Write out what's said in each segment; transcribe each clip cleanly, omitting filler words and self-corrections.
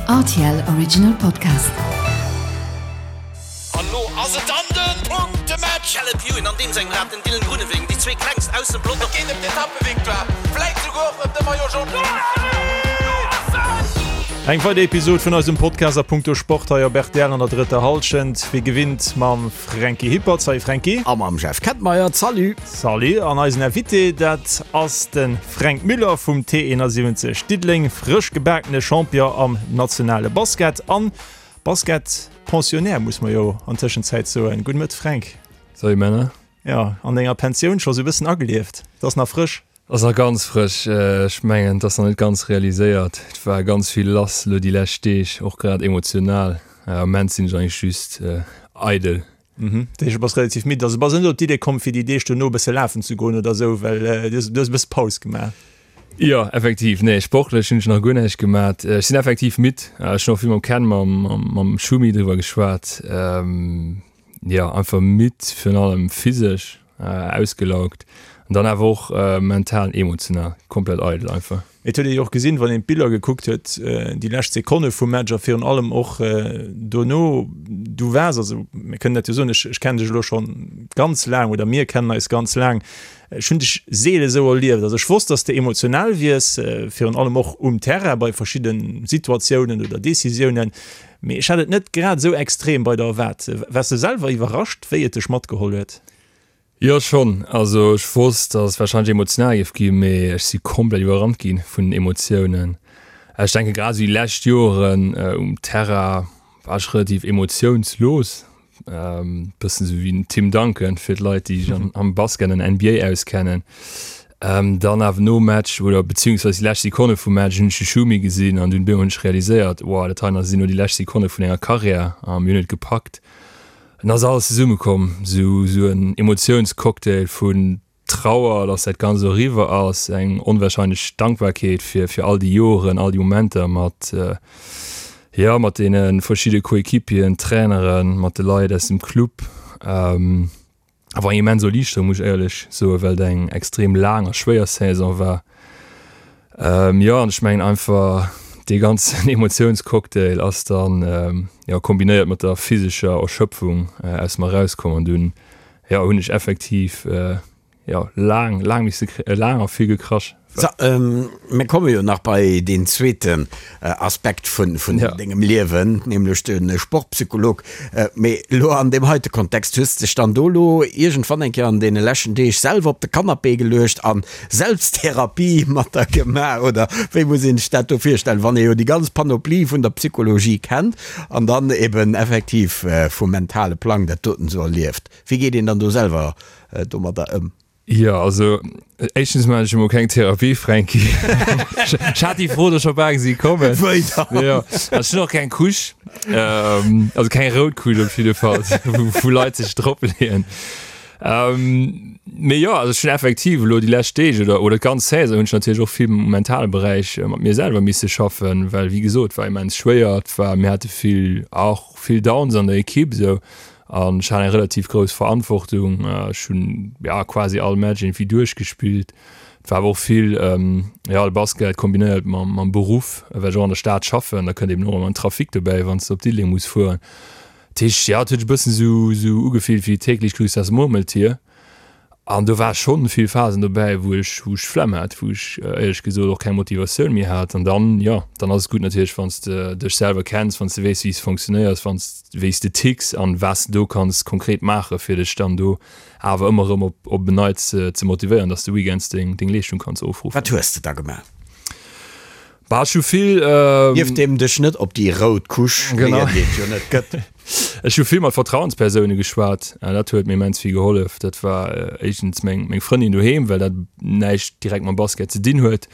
Rtl Original Podcast. An lo ass et dann den Punktematch! Caleb Ewan an deem sengem Rad, den Dylan Groenewegen, déi zwee klengst aus dem Pelotong. Et geet ëm d'Etappevictoire, vläit souguer och ëm de Maillot Jaune. Eng weider Episod vun eisem Podcast a punkto Sport hei op rtl an der drëtter Hallschent. Wéi gewinnt mam Franky Hippert. Salut Franky. A mam Jeff Kettmeyer. Salut. Salut. An eisen Invité, dat ass de Fränk Müller vum T71 Diddeleng, frësch gebakene Champion am nationale Basket an Basket-Pensionnaire, muss mer jo an Tëschenzäit soen. Gudde Mëtt Fränk. Salut Männer. Jo, an denger Pensioun scho sou bëssen agelieft. Et ass nach frësch. Ass nach ganz frësch. Ech mengen, et ass nach net ganz realiséiert. Et war ganz vill lass elo déi lescht Deeg, och grad emotional. Am Moment sinn ech eigentlech just eidel. Dat heescht, du bass relativ midd. Also bass net op d'Idee komm, fir déi Deeg dono e bësse lafen ze goen oder esou, well du hues e bësse Paus gemaach? Jo, effektiv. Nee, sportlech hunn ech nach guer näischt gemat. Ech sinn effektiv midd. Ech hunn och vill mam Ken, mam Schumi driwwer geschwat. Jo, einfach midd, virun allem physesch ausgelaugt an dann awer och mental an emotional komplett eidel einfach. Et huet ee jo och gesinn, wann een d'Biller gekuckt huet, déi lescht Sekonne vum Match a virun allem och dono, du waars, also mir kënnen dat jo soen, ech kennen dech elo scho ganz laang oder mir kennen eis ganz laang, ech hunn dech seele sou erlieft. Also ech wosst, dass de emotional wiers, virun allem och um Terrain bei verschidde Situatiounen oder Decisiounen, Mee ech hat et net grad esou extrem bei der erwaart. Waars de selwer iwwerrascht, wéi et dech matgeholl huet? Jo, schonn. Also ech wosst, dass et warscheinlech emotional géif ginn, mee ech si komplett iwwerrannt gi vun den Emotiounen. Ech denke grad esou déi lescht Joren um Terrain war ech relativ emotiounslos. Bëssen esou wéi den Tim Duncan, fir d'Leit, déi sech am Basket an NBA auskennen. Dann awer nom Match oder beziehungsweise déi lescht Sekonne vum Match hunn ech de Schumi gesinn an dunn hunn ech realiséiert, wow, dat hei sinn elo déi lescht Sekonne vun enger Karriär a mir hunn et gepackt. An da ass alles zesummekomm, esou en Emotiounscocktail vun Trauer, dass dat Ganzt elo eriwwer ass, eng onwahrscheinlech Dankbarkeet fir fir all déi Joren, all déi Momenter mat, jo, mat deene verschidde Coéquipieren, Traineren, mat de Leit aus dem Club. Awer eng immens Erliichterung, muss ech éierlech soen, well et eng extrem laang a schwéier Saison war. Jo, an ech mengen einfach dee ganzen Emotiounscocktail ass dann, jo, kombinéiert mat der physescher Erschöpfung aus mer erauskomm an dunn Jo, hunn ech effektiv jo laang, laang misse, laang a vill gekrasch. So, mir komme jo nach bei deen zweeten Aspekt vun dengem Liewen, nämlech de Sportpsycholog. Mee elo an deem heite Kontext, hues de dech dann do elo iergendwann eng Kéier an deene leschten Deeg selwer op de Canapé geluecht a Selbsttherapie mat der gemaach, oder wéi muss een sech dat do virstellen, wann ee jo déi ganz Panoplie vun der Psychologie kennt an dann eben effektiv vum mentale Plang dat doten esou erlieft? Wéi geet een dann do selwer domadder ëm? Jo, also éischtens maachen ech emol keng Therapie, Fränki. Ech hat déi Fro do scho bal gesi kommen. Wéi dann? Jo, ech hunn och keng Couche, also keng rout Couche op jidde Fall, wou Leit sech drop leeën. Mee jo, also ech hunn effektiv elo déi lescht Deeg oder oder d'ganz Saison hunn ech natierlech och vill um mentale Beräich mat mir selwer misse schaffen, well wéi gesot, war immens schwéier, et war, mir hate vill, och vill Downs an der Ekipp esou. An ech hat eng relativ grouss Verantwortung. Ech hunn ja quasi all Match irgendwie duerchgespillt. Et war awer och vill ja de Basket kombinéiert mam mam Beruff, well ech och an der Stad schaffen. Da kënnt eben och ëmmer den Trafic dobäi, wann s de op Diddeleng muss fueren. Dat heescht, ja et huet sech e bëssen esou esou ugefillt wéi täglich grüßt das Murmeltier. An do war schonn vill Phasen dobäi, wou ech, wou ech d'Flemm hat, wou ech éierlech gesot och keng Motivatioun méi hat. An dann, jo, dann ass et gutt natierlech, wann s de dech selwer kenns, wann s de weess, wéi s de funktionéiers, wann s, wéi s de ticks an wat s de do kanns konkret maachen, fir dech dann do awer ëmmer erëm op, op en Neits ze motivéieren, dass de weekends deng, deng Leeschtung kanns ofruffen. Wat hues de da gemaach? Bah, ech hu vill. Nieft deem dech net op déi rout Couche leeën, déi et jo net gëtt. Ech hu vill mat Vertrauenspersoune geschwat. Dat huet mir immens vill gehollef. Dat war éischtens meng meng Frëndin doheem, well dat näischt direkt mam Basket ze dinn huet.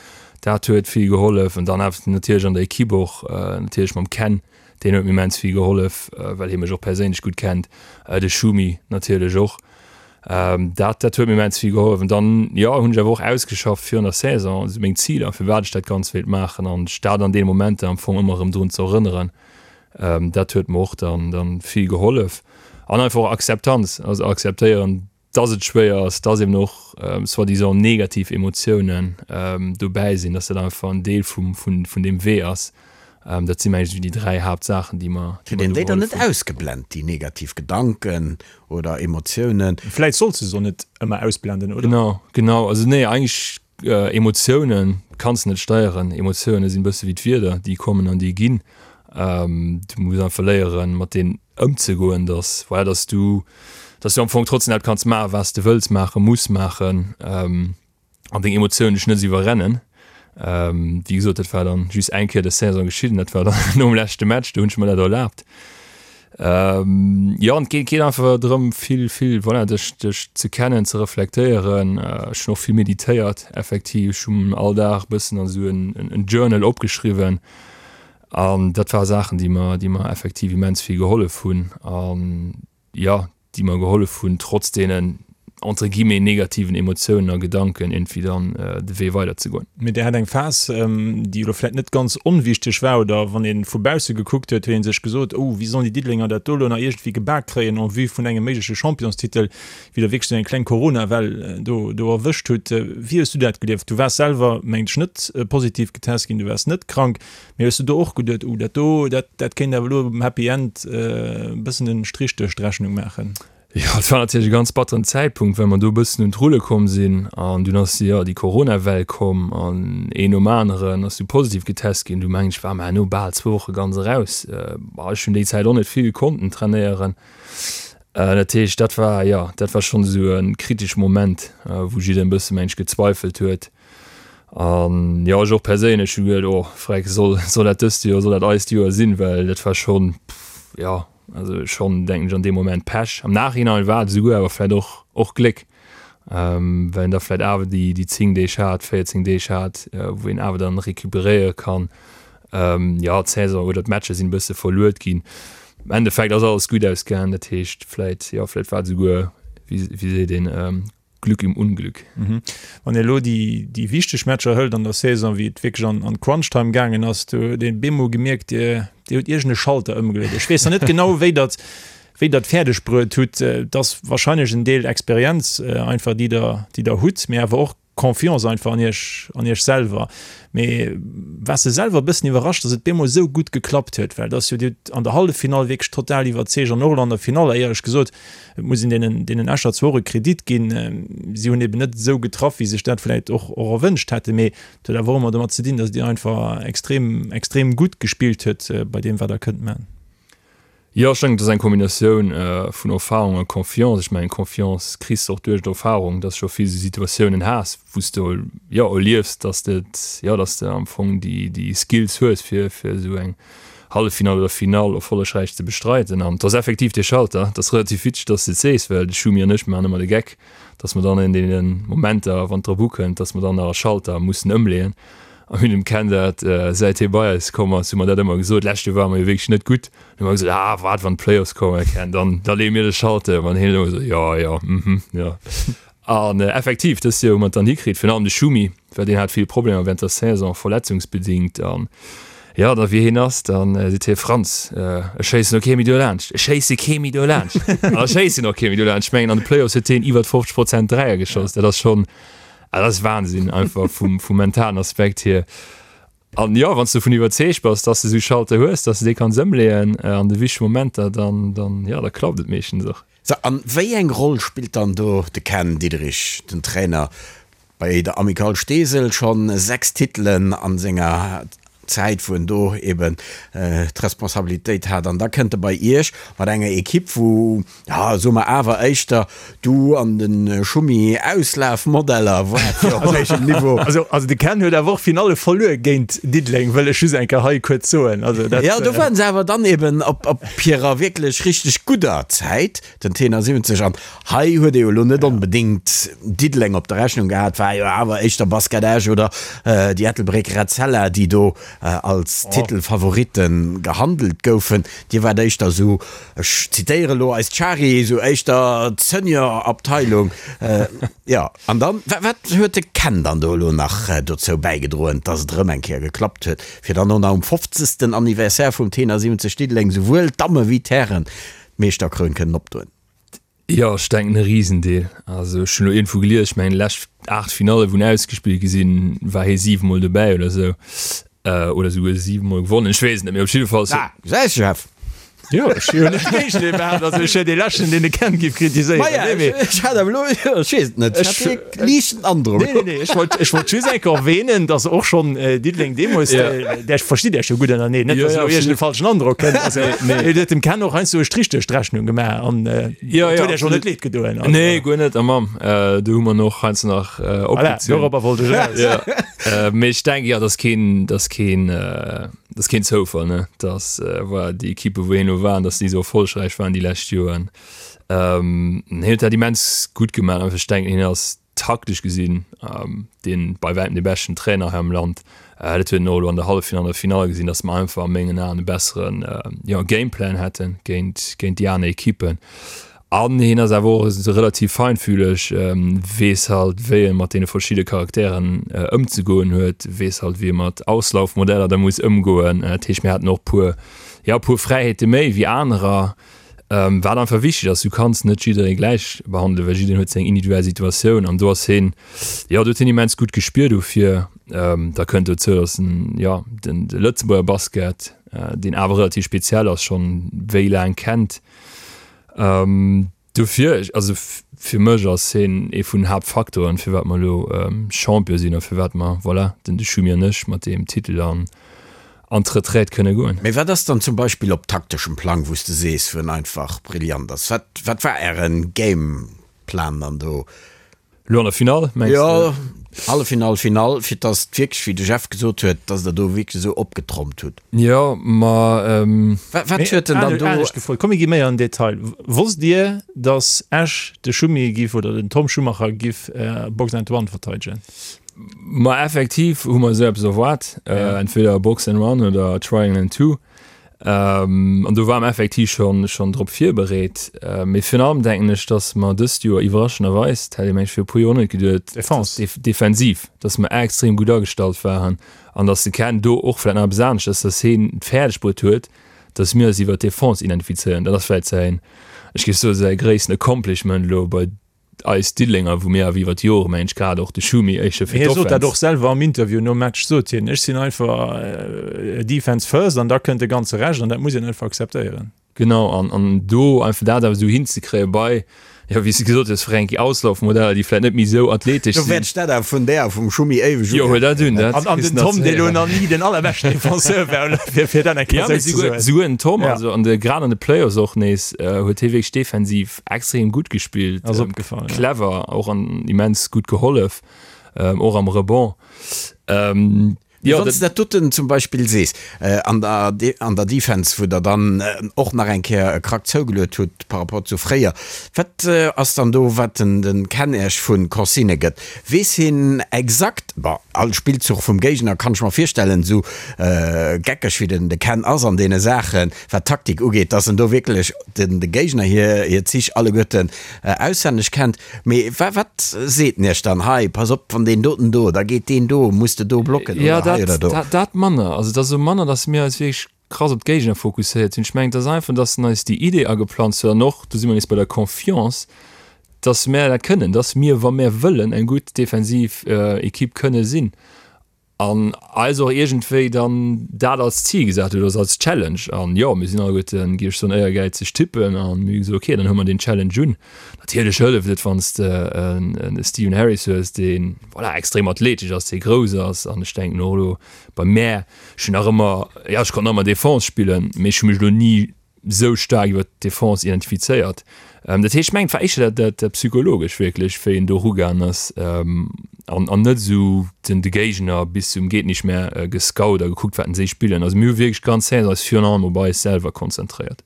Dat huet vill gehollef. An dann awer natierlech an der Ekipp och, natierlech mam Ken, deen huet mir immens vill gehollef, well hie mech och perséinlech gutt kennt. De Schumi natierlech och. Dat dat huet mir immens vill gehollef. An dann, jo, hunn ech awer och ausgeschafft virun der Saison esou meng Ziler, firwat ech dat Ganzt wéilt maachen an ech dat an deene Momenter am Fong ëmmer erëm drun ze erënneren. Dat huet mer och dann dann vill gehollef. An einfach och Akzeptanz, also akzeptéieren, dass et schwéier ass, dass eben och soi-disant negativ Emotiounen dobäi sinn, dass dat einfach en Deel vum vun vun deem Wee ass. Dat si mengen ech esou déi 3 Haaptsaachen, déi mer, déi Kritt mer een do déi dann gehollef net hunn. ausgeblent, déi negativ Gedanken oder Emotiounen? Vläit solls de se och net ëmmer ausblenden, oder? Genau, genau. Also nee, eigentlech Emotiounen kanns de net steieren. Emotioune sinn e bësse wéi d'Wieder, déi kommen an déi ginn. Du muss einfach léieren, mat deenen ëmzegoen, dass, voilà, dass du, dass du am Fong trotzdem dat kanns maachen, wat s de wëlls maachen, muss maachen. An deng Emotiounen dech net esou iwwerrennen. Wéi gesot, dat war dann just eng Kéier des Saison geschitt an dat war dann nom leschte Match, do hunn ech mer dat erlaabt. Jo, an et geet geet einfach drëm, vill, vill, voilà, dech, dech ze kennen, ze reflektéieren. Ech hunn och vill meditéiert, effektiv. Ech hunn all Dag e bëssen an esou en, en Journal opgeschriwwen an dat ware Saachen, déi mer, déi mer effektiv immens vill gehollef hunn. An jo, déi mer gehollef hunn, trotz deenen entre guillemets negativen Emotiounen a Gedanken iergendwéi dann de Wee weiderzegoen. Mee Dir hat eng Phas, déi elo vläicht net ganz onwichteg war, oder wann ee vu bausse gekuckt huet, huet ee sech gesot, oh, wéi sollen déi Diddelenger dat do elo nach iergendwéi gebak kréien en vue vun engem méigleche Championstitel, wéi Der wierklech esou eng kleng Corona-Well do do erwëscht hutt. Wéi hues du dat gelieft? Du waars selwer, mengen ech, net positiv getest ginn, du waars net krank. Mee hues du do och geduet, uh, dat do, dat, dat kéint awer elo um Happy End e bëssen en Strich duerch d'Rechnung maachen? Jo, et war natierlech e ganz batteren Zäitpunkt, well mer do e bëssen un d'Rulle komm sinn an dunn ass, jo, déi Corona-Well komm an een nom aneren ass du positiv getest ginn. Du mengen ech war mer herno bal zwou Woche ganz eraus. Ech hunn déi Zäit och net vill konnten trainéieren. Dat heescht, dat war, jo, dat war schonn esou e kritesche Moment, wou jiddereen e bësse mengen ech gezweifelt huet. An jo, ech och perséinlech hu geduet, oh freck, soll, soll dat dëst Joer, soll dat eist Joer sinn? Well dat war schonn, jo, also schonn, denken ech, an deem Moment Pech. Am Nachhinein war et esouguer awer vläicht och, och Gléck, well een da vläicht awer déi, déi 10 Deeg hat, 14 Deeg hat, wou een awer dann recuperéiere kann. Jo, d'Saison oder d'Matcher sinn e bësse verluet ginn. Am Endeffekt ass alles gutt ausgaangen, dat heescht vläicht, jo, vläicht war et esouguer, wéi, wéi seet een, Glück im Unglück. Wann ee elo déi wichteg Matcher hëlt an der Saison, wéi et wierklech an d'Crunch-Time gaangen ass, do huet een bemol gemierkt, Dir hutt iergend e Schalter ëmgeluet. Ech weess nach net genau, wéi Der wéi Der et fäerdeg bruet hutt. Et ass warscheinlech en Deel Experienz einfach, déi Der déi Der hutt, mee awer och Confiance einfach an Iech an Iech selwer. Mee waars de selwer e bëssen iwwerrascht, datt et bemol esou gutt geklappt huet? Well et ass jo, Dir hutt an der Halleffinall wierklech total iwwerzeegt an och elo an der Finall, éierlech gesot, Et muss een deenen, deenen Escher zwar och e Kredit ginn, si hunn eben net esou getraff, wéi sech dat vläicht och, och erwënscht hätten, mee et huet awer och ëmmer domat ze dinn, datt Dir einfach extrem, extrem gutt gespillt huet bei deem, wat Der kënnt man. Jo, ech denken, et ass eng Kombinatioun vun Erfahrung a Confiance. Ech mengen, Confiance kriss de och duerch d'Erfahrung, dass de scho vill esou Situatiounen has, wou s de, jo, erliefs, dass de et, jo, dass de am Fong déi, déi Skills hues, fir, fir esou eng Halleffinall oder Finall erfollegräich ze bestreiden. An et ass effektiv dee Schalter, et ass relativ witzeg, dass de et sees, well de Schumi an ech maachen ëmmer de Geck, dass mer dann an deene Momenter, wann et drop ukënnt, dass mer dann nach e Schalter mussen ëmleeën. A mir hunn dem Ken dat, säit hie bei eis komm ass, hu mer dat ëmmer gesot. D'lescht Joer ware mer jo wierklech net gutt. Dann hu mer gesot, ah, waart, wann d'Playoffs kommen, Ken, dann, da leeë mir de Schalter ëm. An hien ëmmer esou, jo, jo, mhm, jo. An effektiv, dëst Joer hu mer et dann hikritt, virun allem de Schumi, well deen hat vill Problemer während der Saison, verletzungsbedingt. An jo, da wéi hien ass, da seet hie, Franz, ech schéissen och kee méi dolaanscht, ech schéisse kee méi dolaanscht. An da schéisst hien och kee méi dolaanscht. Ech mengen, an de Playoffs huet hien iwwer 50 Prozent Dräier geschoss. Dat ass schonn, dat ass Wahnsinn einfach vum, vum mentalen Aspekt hier. An jo, wann s de dovun iwwerzeegt bass, dass de esou Schalter hues, dass de dee kanns ëmleeën an de wichtege Momenter, dann, dann, jo, da klappt et meeschtens och. Sou, an wéi eng Roll spillt dann do de Ken Diederich, den Trainer bei der Amicale Steesel, schonn 6 Titelen an senger Zäit, wou en do eben d'Responsabilitéit hat, an da kënnt e bei Iech mat enger Equipe, wou, ja, soe mer awer éischter du an de Schummi Auslafmodeller waart fir op héichem Niveau. Also, also de Ken huet awer och Finalle verluer géint Diddeleng, wëll ech just eng Kéier hei kuerz soen. Also dat. Jo, do waren se awer dann eben op, op hirer wierklech richteg gudder Zäit, den Tenor 70. An hei huet ee jo elo net onbedéngt Diddeleng op der Rechnung gehat, war jo awer éischter Basket Esch oder déi Ettelbréck Etzella, déi do als Titelfavorite gehandelt goufen. Dir waart éischter esou, ech zitéiere elo eist Shari, esou éischter d'Senior-Abteilung. Jo, an dann, wat huet de Ken dann do elo nach dozou bäigedroen, dass et erëm eng Kéier geklappt huet, fir dann och nach um 50. Anniversaire vum Tenor 70 Diddeleng souwuel d'Damme wéi d'Hären d'Meeschterkroun kënnen opdoen? Jo, ech denken e Risendeel. Also ech hunn elo iergendwou gelies, ech mengen déi lescht 8 Finalle wou en ausgespillt gi sinn, war hie 7 mol dobäi oder esou. Oder esouguer 7 mol gewonnen, ech weess et net, mee op jidde Fall. Ah, gesäis Jeff! Jo, ech hu jo net géigend dee behaapt, also ech wier dee leschten, deen de Ken giff kritiséieren. Maja, Nee, mee. ech hat awer elo, ech weess et net, ech hat dee liichten Androck. Nee, nee, nee, ech wollt, ech wollt just eng Kéier erwähnen, dass och schonn Diddeleng deemools, där verstitt Iech jo gutt ënnerteneen, net Jo, dass jo, elo iergend e absolut. falschen Androck kënnt. Also, Nee. et huet dem Ken och heiansdo e Strich duerch d'Rechnung gemaach an Jo, et jo, huet Iech och net absolut. leed gedoen. Also, Nee, guer net, a Mamm, do hu mer en och heiansdo nach voilà, opgezunn. dorobber wollt ech eraus. Ja. Mee ech denken, jo, dat ass keen, dat ass keen, dat ass keen Zoufall, ne, dass voilà, déi Ekippe wou hien elo waren, dass déi esou erfollegräich waren déi lescht Joren. Hien huet dat immens gutt gemaach. Einfach ech denken, hien ass taktesch gesinn dee bei wäitem dee beschten Trainer hei am Land. Dat huet een och elo an der Halleffinall an der Finall gesinn, dass mer einfach a mengen Aen e besseren, jo, Gameplan hätte géint, géint déi aner Ekippen. An hien ass awer och esou relativ feinfühleg, weess halt wéi e mat deene verschidde Charakteren ëmzegoen huet, weess halt wéi e mat Auslaufmodeller da muss ëmgoen. Dat heescht mir haten och puer, jo puer Fräiheete méi wéi anerer, wat einfach wichteg ass. Du kanns net jidderee gläich behandelen, well jiddereen huet seng individuell Situatioun an do ass hien, jo do huet hien immens gutt Gespier dofir. Da kënnt dozou, datt en, jo den de Lëtzebuerger Basket, deen awer relativ speziell ass, schonn wéi laang kennt. Dofir, also fir mech ass hien ee vun den Haaptfaktoren, firwat mer elo Champion sinn a firwat mer, voilà, den de Schumi an ech mat deem Titel an an d'Retraite kënne goen. Mee wat ass dann zum Beispill op takteschem Plang, wou s de sees, wou en einfach brillant ass? Wat, wat war Ären Gameplan dann do? Elo an der Finall, mengs de? Jo, Halleffinall, Finall, fir dass et wierklech, wéi de Jeff gesot huet, dass der do wierklech esou opgetrompt hutt. Jo, ma. Wat huet en dann do? Anescht gefrot, komm mir gi méi an den Detail. Wosst Dir, dass Esch de Schumi giff oder den Tom Schumacher giff Box and One verteidegen? Ma effektiv hu mer esou eppes erwaart, entweder Box and One oder Triangle and Two. An do ware mer effektiv schonn schonn drop virbereet. Mee virun allem denken ech, datt mer dëst Joer iwwerraschenderweis, dat hätt ee mengt viru e puer Joer och net geduet, Defense. defensiv, datt mer extrem gutt agestallt waren an datt de Ken do och vläicht nach eppes aneschters, datt hien et fäerdeg bruet huet, datt mir eis iwwert d'Defense identifizéieren. Dat ass vläicht säin, ech géif soen, säi gréissten Accomplishment elo bei eis Diddelenger, wou mir awer iwwer d'Jore, mengen ech, grad och de Schumi éischter fir Hie sot dat d'Offense. och selwer am Interview nom Match, sot hien, ech sinn einfach Defense first an da kënnt de ganze Rescht an dat muss een einfach akzeptéieren. Genau, an, an do einfach dat awer esou hinzekréie bei, jo, wéi s de gesot hues, Fränki, Auslaufmodeller, déi vläicht net méi esou athletesch Do wäert sinn. ech dat awer vun där a vum Schumi éiweg Jo, huel dat un, dat An, an kriss den de nach Tom, ze dee lo héieren. nach ni den allerbeschten Defenseur war, fir, fir dat eng Kéier Ja, mee esou ze souguer, soen. souguer den Tom, Ja. also an de, grad an de Playoffs och nees, huet hie wierklech defensiv Extrem gutt gespillt, Ass opgefall, ja. clever, och an immens gutt gehollef, och am Rebond. Mee wann s de dat doten zum Beispill sees, an der, an der Defense, wou Der dann och nach eng Kéier e Krack zougeluet hutt par rapport zu fréier, wat ass dann do, wat den, den Ken Iech vu Consignë gëtt? Weess hien exakt, bon, all Spillzuch vum Géigner kann ech mer virstellen, esou geckeg wéi den de Ken ass an deene Saachen, wat d'Taktik ugeet, dass en do wierklech den de Géigner hir hir Zich alleguerten auswenneg kennt. Mee wa wat seet en iech dann, hei pass op, wann deen doten do, da geet deen do, muss de do blocken Ja, oder hei oder dat, do? dat, dat manner. Also et ass esou manner, dass mir eis wierklech krass op d'Géigner fokusséiert hunn. Ech mengen, et ass einfach, dass en eis déi Idee ageplanzt huet an och, do si mer nees bei der Confiance, dass mär dat kënnen, dass mir, wa mär wëllen, eng gutt defensiv Equipe kënne sinn. An eis och iergendwéi dann dat als Zil gesat huet, also als Challenge. An jo, mir sinn alleguerten, géif ech soen, éiergäizeg Typpen a mir hu gesot, okay, dann huele mer deen Challenge un. Natierlech hëlleft et, wann s de en Stephen Harris hues, dee voilà, extrem athletesch ass, dee grouss ass. An ech denken och elo bei mär, ech hunn nach ëmmer, jo, ech konnt nach ëmmer Defense spillen, mee ech hu mech elo ni sou staark iwwer d'Defense identifizéiert. Dat heescht, ech mengen, et war éischter dat, dat psychologesch wierklech, wéi en do erugaangen ass an, an net esou den, de Géigner bis zum Geet-nicht-mehr gescout a gekuckt, wat en si spillen. Also mir hu wierklech ganz Saison eis virun allem op eis selwer konzentréiert.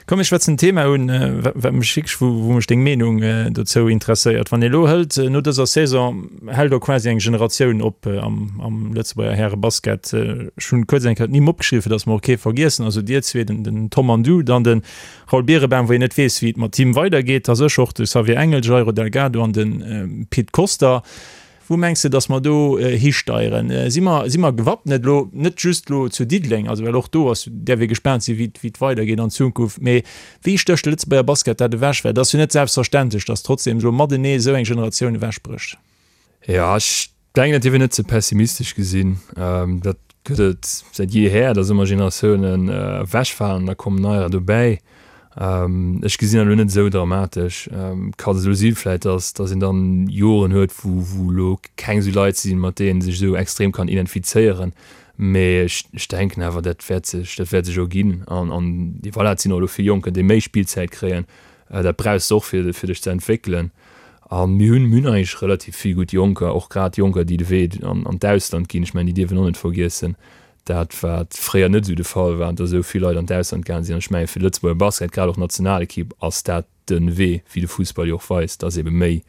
Komm mir schwätzen en Thema un, wat mech wierklech, wou, wou mech deng Meenung dozou interesséiert. Wann ee elo hëlt, no dëser Saison hält och quasi eng Generatioun op am, am Lëtzebuerger Härebasket. Ech hunn kuerz eng Kéier d'Nimm opgeschriwwen, fir datt mer och kee vergiessen. Also dir zwee, den, den Tom an du, dann de Raoul Birebaum, wou een net weess, wéi et mat him weidergeet, da sécher och de Xavier Engel, Jairo Delgado an de Pit Koster. Wou mengs de, datt mer do histeieren? Si mer, si mer gewappnet elo, net just elo zu Diddeleng, also well och do ass, däerf ee gespaant sinn, wéi, wéi et weidergeet an Zukunft, mee wéi stécht de Lëtzebuerger Basket dat ewech? Well et ass jo net selbstverständlech, datt trotzdem elo matenee esou eng Generatioun ewechbrécht. Jo, ech. Denken, dat dierf een net ze pessimistesch gesinn. Dat gëtt et säit jeeher, datt ëmmer Generatiounen ewechfalen an da kommen neier dobäi. Ech gesinn dat elo net esou dramatesch. Kann esou si vläicht, datt datt een dann Joren huet, wou wou elo keng esou Leit sinn, mat deenen ee sech esou extrem kann identifizéieren. Mee ech ech denken awer, dat wäert sech dat wäert sech erginn. An an voilà, et sinn och elo vill Jonker, déi méi Spillzäit kréien. Dat brauchs de och fir fir dech ze entwéckelen. A mir hunn, mir hunn eigentlech relativ vill gutt Jonker, och grad Jonker, déi de Wee an an d'Ausland ginn. Ech mengen, déi dierf een och net vergiessen, dat wat fréier net esou de Fall war, datt esou vill Leit an d'Ausland gaange sinn. An ech menge fir de Lëtzebuerger Basket, grad och d'Nationalekipp, ass dat de Wee, wéi de Fussball jo och weist, datt ebe méi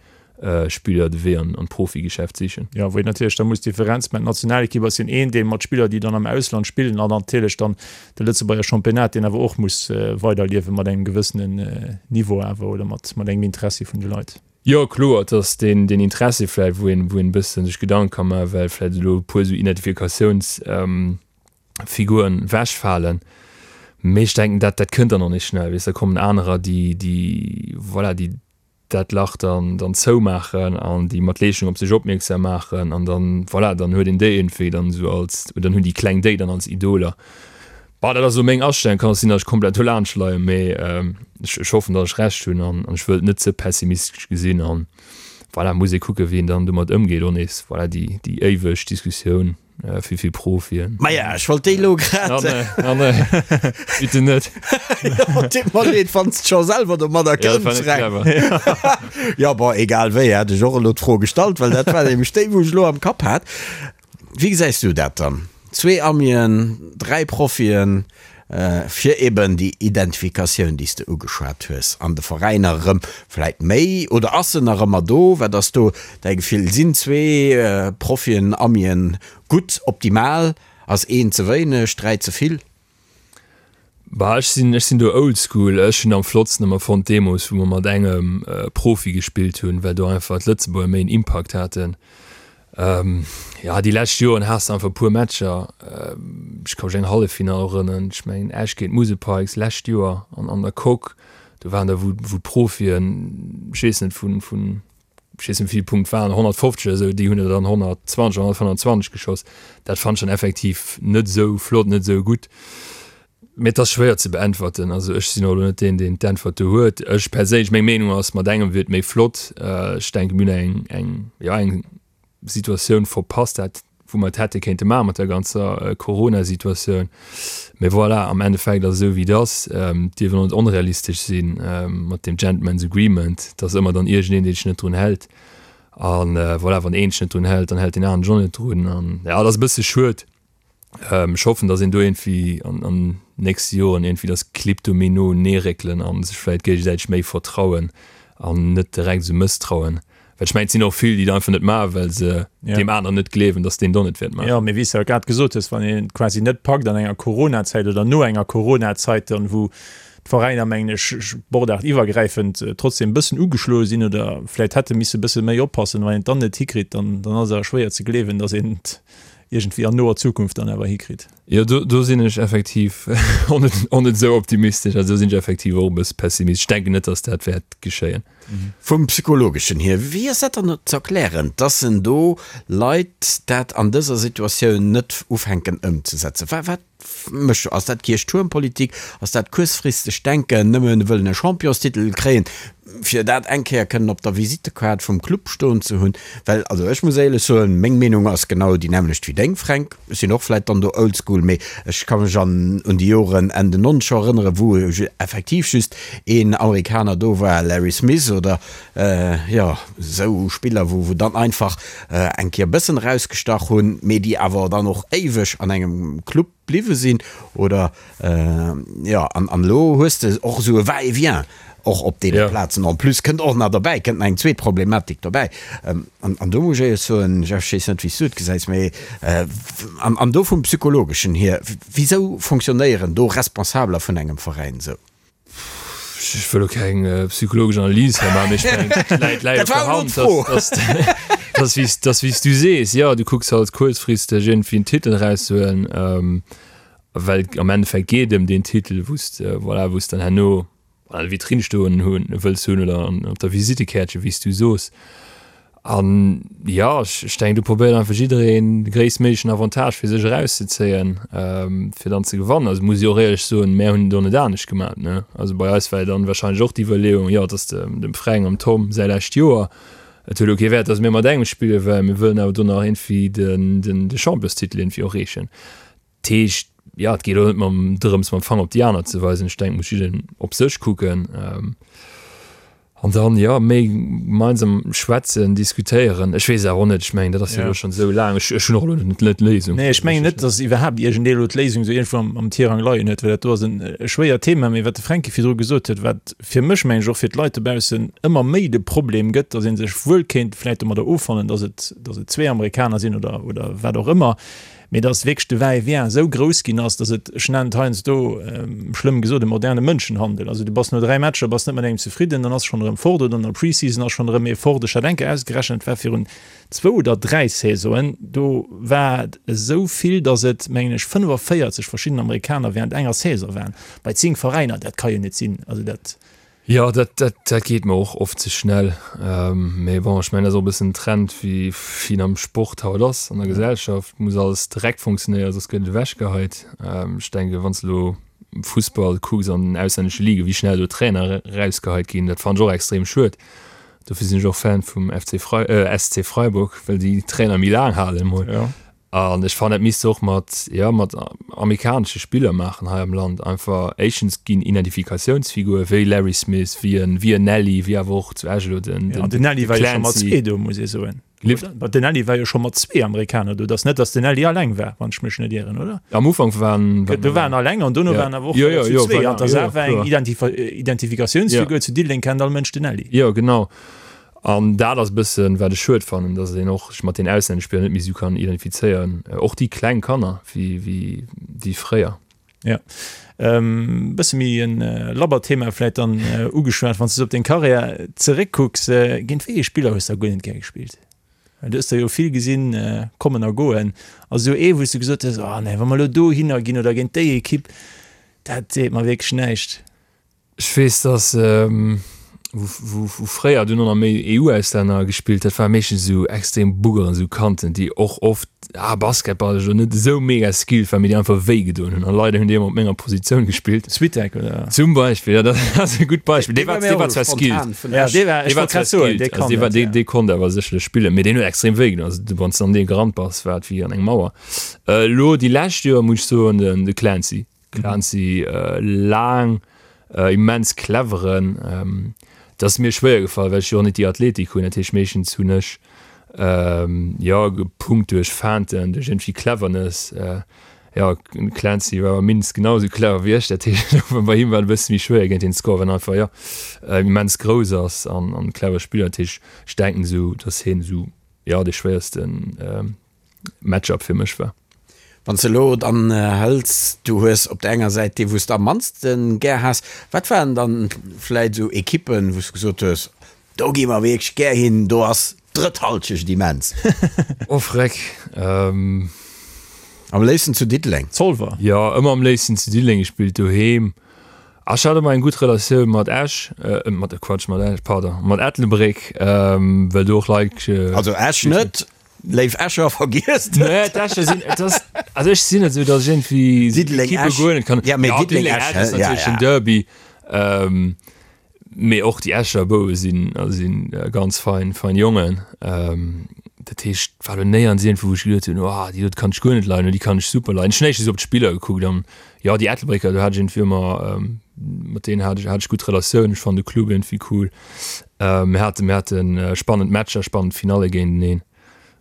Spiller de Wee an d'Profigeschäft sichen. Jo, wou een natierlech da muss d'Differenz maachen, D'Nationalekipp ass jo een Deel mat Spiller, déi dann am Ausland spillen, an natierlech dann de Lëtzebuerger Championnat, deen awer och muss weiderliewe mat engem gewëssenen Niveau awer oder mat mat engem Interessi vun de Leit. Jo, kloer, et ass deen deen Interessi vläicht, wou een wou een e bëssen sech Gedanke ka maachen, well vläicht elo e puer esou Identifikatiounsfiguren ewechfalen. Mee ech denken, dat dat kënnt dann och nees schnell, weess, da kommen anerer, déi déi voilà, déi dat Lach dann dann zoumaachen an déi mat Leeschtung op sech opmierksam maachen an dann, voilà, dann huet een déi iergendwéi dann esou als, oder dann hunn déi Kleng déi dann als Idoler. Bah, dat ass elo meng Astellung, kann och sinn, datt ech komplett dolaanscht leien, mee ech ech hoffen, datt ech Recht hunn an an ech wëll et net ze pessimistesch gesinn an, voilà, muss ee kucken, wéi een dann domat ëmgeet och nees, voilà, déi déi éiweg Diskussioun. Wéi vill Profien? Maja, ech wollt déi elo grad. Ah nee, ah nee, bitte net. Jo, deet mer leed, wann s de scho selwer domadder Ja, dat war kënns, net Fränk. clever. Jo, bon, egal wéi, hat ech och elo d'Fro gestallt, well dat war nämlech déi, wou ech elo am Kapp hat. Wéi gesäis du dat dann? Zwee Amien, dräi Profien, fir eben déi Identifikatioun, déi s de ugeschwat hues, an de Veräiner erëm vläit méi, oder ass se nach ëmmer do? Wat ass do däi Gefill? Sinn zwee Profien, Amien gutt, optimal? Ass een ze wéineg, dräi ze vill? Bah, ech sinn, ech sinn do oldschool. Ech hunn am flottsten ëmmer fonnt deemools, wou mer mat engem Profi gespillt hunn, well do einfach d'Lëtzebuerger méi en Impakt haten. Jo, déi lescht Joren has de einfach e puer Matcher. Ech ka mech eng Halleffinall erënneren, ech mengen Esch géint d'Musel Pikes lescht Joer an an der Coque. Do waren der, wou wou d'Profien, ech weess net, vun vun ech weess net wéi vill Punkt waren, 150 oder esou, déi hunn der dann 120 oder 125 geschoss. Dat fannt ech dann effektiv net esou flott, net esou gutt. Mee et ass schwéier ze beäntwerten. Also ech sinn och elo net deen, deen d'Äntwert do huet. Ech perséinlech, meng Meenung ass, mat engem wier et méi flott. Ech denken, mir hunn eng, eng, jo, eng Situatioun verpasst, dat wou mer et hätte kéinte maache mat der ganzer Corona-Situatioun. Mee voilà, am Endeffekt ass et esou wéi et ass. Et dierf een och net onrealistesch sinn mat deem Gentleman's Agreement, dass ëmmer dann iergendeen, dee sech net drun hält. A voilà, wann een sech net drun hält, dann hält deen aneren sech och net drun. An jo, et ass e bësse schued. Ech hoffen, dass een do iergendwéi an an nächste Joren iergendwéi dass d'Clibb do méi no unee réckelen a sech vläicht géigesäiteg méi vertrauen an net direkt esou mësstrauen. Well ech mengen, et sinn och vill, déi dat einfach net maachen, well se deem aneren net gleewen, dass deen et och net wäert maachen. Jo, mee wéi s de jo grad gesot hues, wann een et quasi net packt an enger Coronazäit oder no enger Coronazeit dann, wou d'Veräiner, mengen ech, sportaartiwwergräifend trotzdem e bëssen ugeschloe sinn oder vläicht hätte misse e bësse méi oppassen, wann een et dann net hikritt, dann dann ass et awer schwéier ze gleewen, dass een et iergendwéi an noer Zukunft dann awer hikritt. Jo, do, do sinn ech effektiv och net, och net esou optimistesch. Also do sinn ech effektiv och e bësse pessimistesch. Ech denken net, datt dat wäert geschéien. Vum Psychologeschen hier, wéi ass dat dann ze erklären, dass en do Leit dat an dëser Situatioun net ufänken ëmzesetzen? Wat, wat mécht do? Ass dat Kierchtuermpolitik? Ass dat kuerzfristegt Denken, nëmme wëllen e Championstitel kréien, fir dat eng Kéier kënnen op der Visittekaart vum Club stoen ze hunn? Well, also ech muss éierlech soen, meng Meenung ass genau déi nämmlecht wéi deng, Fränk. Ech sinn och vläit dann do oldschool, mee ech ka mech an un déi Joren Enn den Nonzeger erënneren, wou effektiv just een Amerikaner do war, Larry Smith oder jo esou Spiller, wou wou dann einfach eng Kéier e bëssen erausgestach hunn, mee déi awer dann och éiweg an engem Club bliwwe sinn oder jo an an elo hues de och esou e Va-et-vient och op deene Plazen. En plus kënnt och nach derbäi, kënnt nach eng zweet Problematik dobäi an an do muss ech éierlech soen, Jeff, ech weess net wéi s du et gesäis, mee an an do vum Psychologeschen hier, wisou fonctionnéieren do Responsabeler vun engem Veräin esou? Ech wëll elo keng psychologesch Analys hei maachen, mee ech mengen, et läit, läit op der Hand, dass, dass, dass, dass, wéi s du sees, jo, du kucks halt kuerzfristeg iergendwéi en Titel erauszehuelen, well am Endeffekt geet et ëm deen Titel, wou s de, voilà, wou s dann herno an der Vitrinn stoen hunn, wëlls hunn oder an, op der Visitekäertchen, wéi s du soos. An jo, ech denken, do probéiert einfach jiddereen de gréisstméiglechen Avantage fir sech erauszezéien, fir dann ze gewannen. Also muss ech och éierlech soen, mär hunn et och net anescht gemat, ne. Also bei eis war jo dann wahrscheinlech och d'Iwwerleeung, jo, et ass dem Fränk an dem Tom säi lescht Joer, et huet elo kee Wäert, datt mir mat engem spillen, well mir wëllen awer do nach iergendwéi de Championstitel iergendwéi och reechen. Dat heescht, jo, et geet och net mam drëms, mam Fanger op déi aner ze weisen. Ech denken, et muss jiddereen op sech kucken. An dann, jo, méi gemeinsam schwätzen, diskutéieren. Ech weess awer och net, ech mengen, dat ass jo elo schonn esou laang. Ech, ech hunn och elo net d'Léisung. Nee, ech mengen net, datt iwwerhaapt iergendee elo d'Léisung esou iergendwou am, am Tirang leien huet, well dat do ass en e schwéiert Thema. Mee wat de Fränki virdru gesot huet, wat fir mech, mengen ech, och fir d'Leit dobaussen ëmmer méi de Problem gëtt, datt ee sech wuel kéint vläicht domadder offannen, datt et, datt et zwee Amerikaner sinn oder, oder wat och ëmmer, mee dass wierklech de Va-et-vient esou grouss ginn ass, dass et, ech nennen et heiansdo, schlëmm gesot, e moderne Mënschenhandel. Also du bass no 3 Matcher, bass net mat engem zefridden, dann ass schonn erëm fort oder an der Pre-Season ass schonn erëm ee fort. Ech hat eng Kéier ausgerechent, et war virun zwou oder 3 Saisonen, do war et esou vill, dass et, mengen ech, 45 verschidden Amerikaner während enger Saison waren, bei 10 Veräiner. Dat ka jo net sinn. Also dat. Jo, dat, dat, dat geet mer och oft ze schnell. Mee bon, ech mengen, dat ass och e bëssen den Trend, wéi wéi en am Sport haut ass, an der Gesellschaft muss alles direkt funktionéieren, soss gëtt et ewechgeheit. Ech denken, wann s de elo Fussball kucks an den auslännesche Ligen, wéi schnell do Trainer erausgeheit ginn, dat fannen ech och extrem schued. Dofir sinn ech och Fan vum FC Frei, SC Freiburg, well déi Trainer méi laang halen emol. An ech fannen, dat misst se och mat, jo, mat amerikanesche Spiller maachen hei am Land. Einfach, éischtens ginn Identifikatiounsfigure wéi Larry Smith, wéi en, wéi en Nelly, wéi awer och zu Esch elo den, den, den Nelly war jo scho mat zwee do, muss ee soen. Lift? Oder? Den Nelly war jo scho mat zwee Amerikaner do. Et ass net, datt den Nelly alleng war, wann ech mech net ieren, oder? Am Ufank waren, waren. Do waren alleng an dono waren awer och jo, jo, zu jo, zwee. Voilà, An dat jo, ass awer eng kloer. Identifikatiounsfigur. Zu Diddeleng kennt all Mënsch den Nelly. Jo, genau. An dat ass e bëssen, wat ech schued fannen, dass een och sech mat den auslännesche Spiller net méi esou kann identifizéieren, och déi kleng Kanner, wéi, wéi, wéi fréier. Jo. Bësse méi e labbert Thema vläit dann ugeschwat, wann s de sou op deng Karriär zeréckkucks, géint wéi ee Spiller hues de da guer net gär gespillt? Well du hues der jo vill gesinn kommen a goen. Ass esou ee wou s de gesot hues, oh nee, wa mer elo dohinner ginn oder géint déi Ekipp, dat seet mer wierklech näischt? Ech weess dass wou fréier dunn och nach méi EU-Auslänner gespillt, dat ware meeschtens esou extrem Buggeren, esou Kanten, déi och oft ah basketballesch elo net esou mega skilled waren, mee déi einfach wéi gedoen hunn. An leider hunn déi ëmmer op menger Positioun gespillt. Switek oder? Zum Beispill, jo dat ass e gutt Beispill. Dee war dee war zwar skilled, Ja dee war, ech dee war wollt zwar grad soen, dee skilled, also kann dee war dat, dee ja. dee konnt awer sécherlech spillen, mee deen huet extrem wéi gedoen. Also wann s de an dee gerannt bass, war et wéi an eng Mauer. Elo déi lescht Joer muss ech soen, den de Clancy. Clancy, laang, immens cleveren. Et ass mir schwéier gefall, well ech jo och net déi Athletik hunn. Dat heescht, meeschtens hunn ech jo gepunkt duerch Feinten, duerch iergendwéi Cleverness. Jo, den Clancy war awer mindestens genau esou clever wéi ech. Dat heescht, bei him war et e bësse méi schwéier géint hien ze scoren, well en einfach, jo, immens grouss ass an e clever Spiller. Dat heescht, ech denken esou, datt hien esou, jo, dee schwéiersten Matchup fir mech war. Wann s de elo dann hëls, du hues op der enger Säit déi wou s de am mannste gär has, wat waren dann vläit esou Ekippen, wou s de gesot hues, do gi mer wierklech gär hin, do ass d'drëtt Halschecht immens? Oh freck. Am léifsten zu Diddeleng. Zolwer. Jo, ëmmer am léifsten zu Diddeleng gespillt, doheem. Ech hat ëmmer eng gutt Relatioun mat Esch, mat, Quatsch, mat Esch, pardon, mat Ettelbréck, well do och Leit. Also Esch net? Léif Escher, vergiesst et! Nee, d'Escher sinn, et ass, also ech sinn net esou, datt ech iergendwéi Diddeleng, Ekippe Esch. guer net kann. Ja, mee Ja, Diddeleng, Diddeleng, Esch, Esch ass hä? Ja, natierlech den ja. Derby. Ähm, mee och déi Escher Bouwe sinn, also sinn ganz fein, fein Jongen. Ähm, dat heescht, war lo néierens iergendwou, wou ech geduet hunn, oh, déi dote kann ech guer net leiden oder déi kann ech super leiden. Ech hunn éischtens op d'Spiller gekuckt an jo, déi Ettelbrécker, do hat ech iergendwéi ëmmer, mat deenen hat ech, hat ech gutt Relatiounen. Ech fannen de Club iergendwéi cool. Mir hate mir hate spannend Matcher, spannend Finalle géinteneen.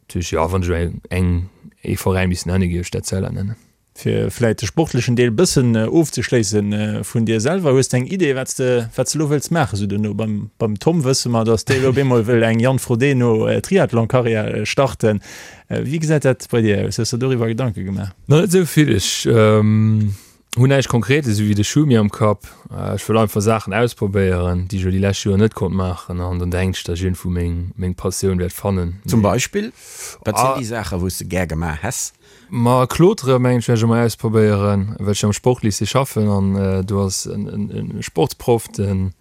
Dat heescht, jo, wann ech elo eng, ee Veräin misst nennen, géif ech d'Etzella nennen. Fir vläit de sportlechen Deel bëssen ofzeschléissen, vun dir selwer, hues de eng Idee, wat s de, wat s de elo wëlls maachen esou duerno? Beim, beim Tom wësse mer, datt dee elo op eemol wëll eng Jan Frodeno Triathlon-Karriär starten. Wéi gesäit dat bei dir aus? Hues de doriwwer Gedanke gemaach? Nach net esou vill. Ech Hunn näischt Konkretes esou wéi de Schumi am Kapp. Ech wëll einfach Saachen ausprobéieren, déi ech elo déi lescht Joer net konnt maachen an dann denken ech, datt ech iergendwou meng meng Passioun wäert fannen. Zum Beispill? Wat sinn déi Saachen, wou s de gär gemaach häss? Ma Klotere mengen ech wäert ech emol ausprobéieren, well ech jo am Sportlycée schaffen an do ass en en Sportsproff, den.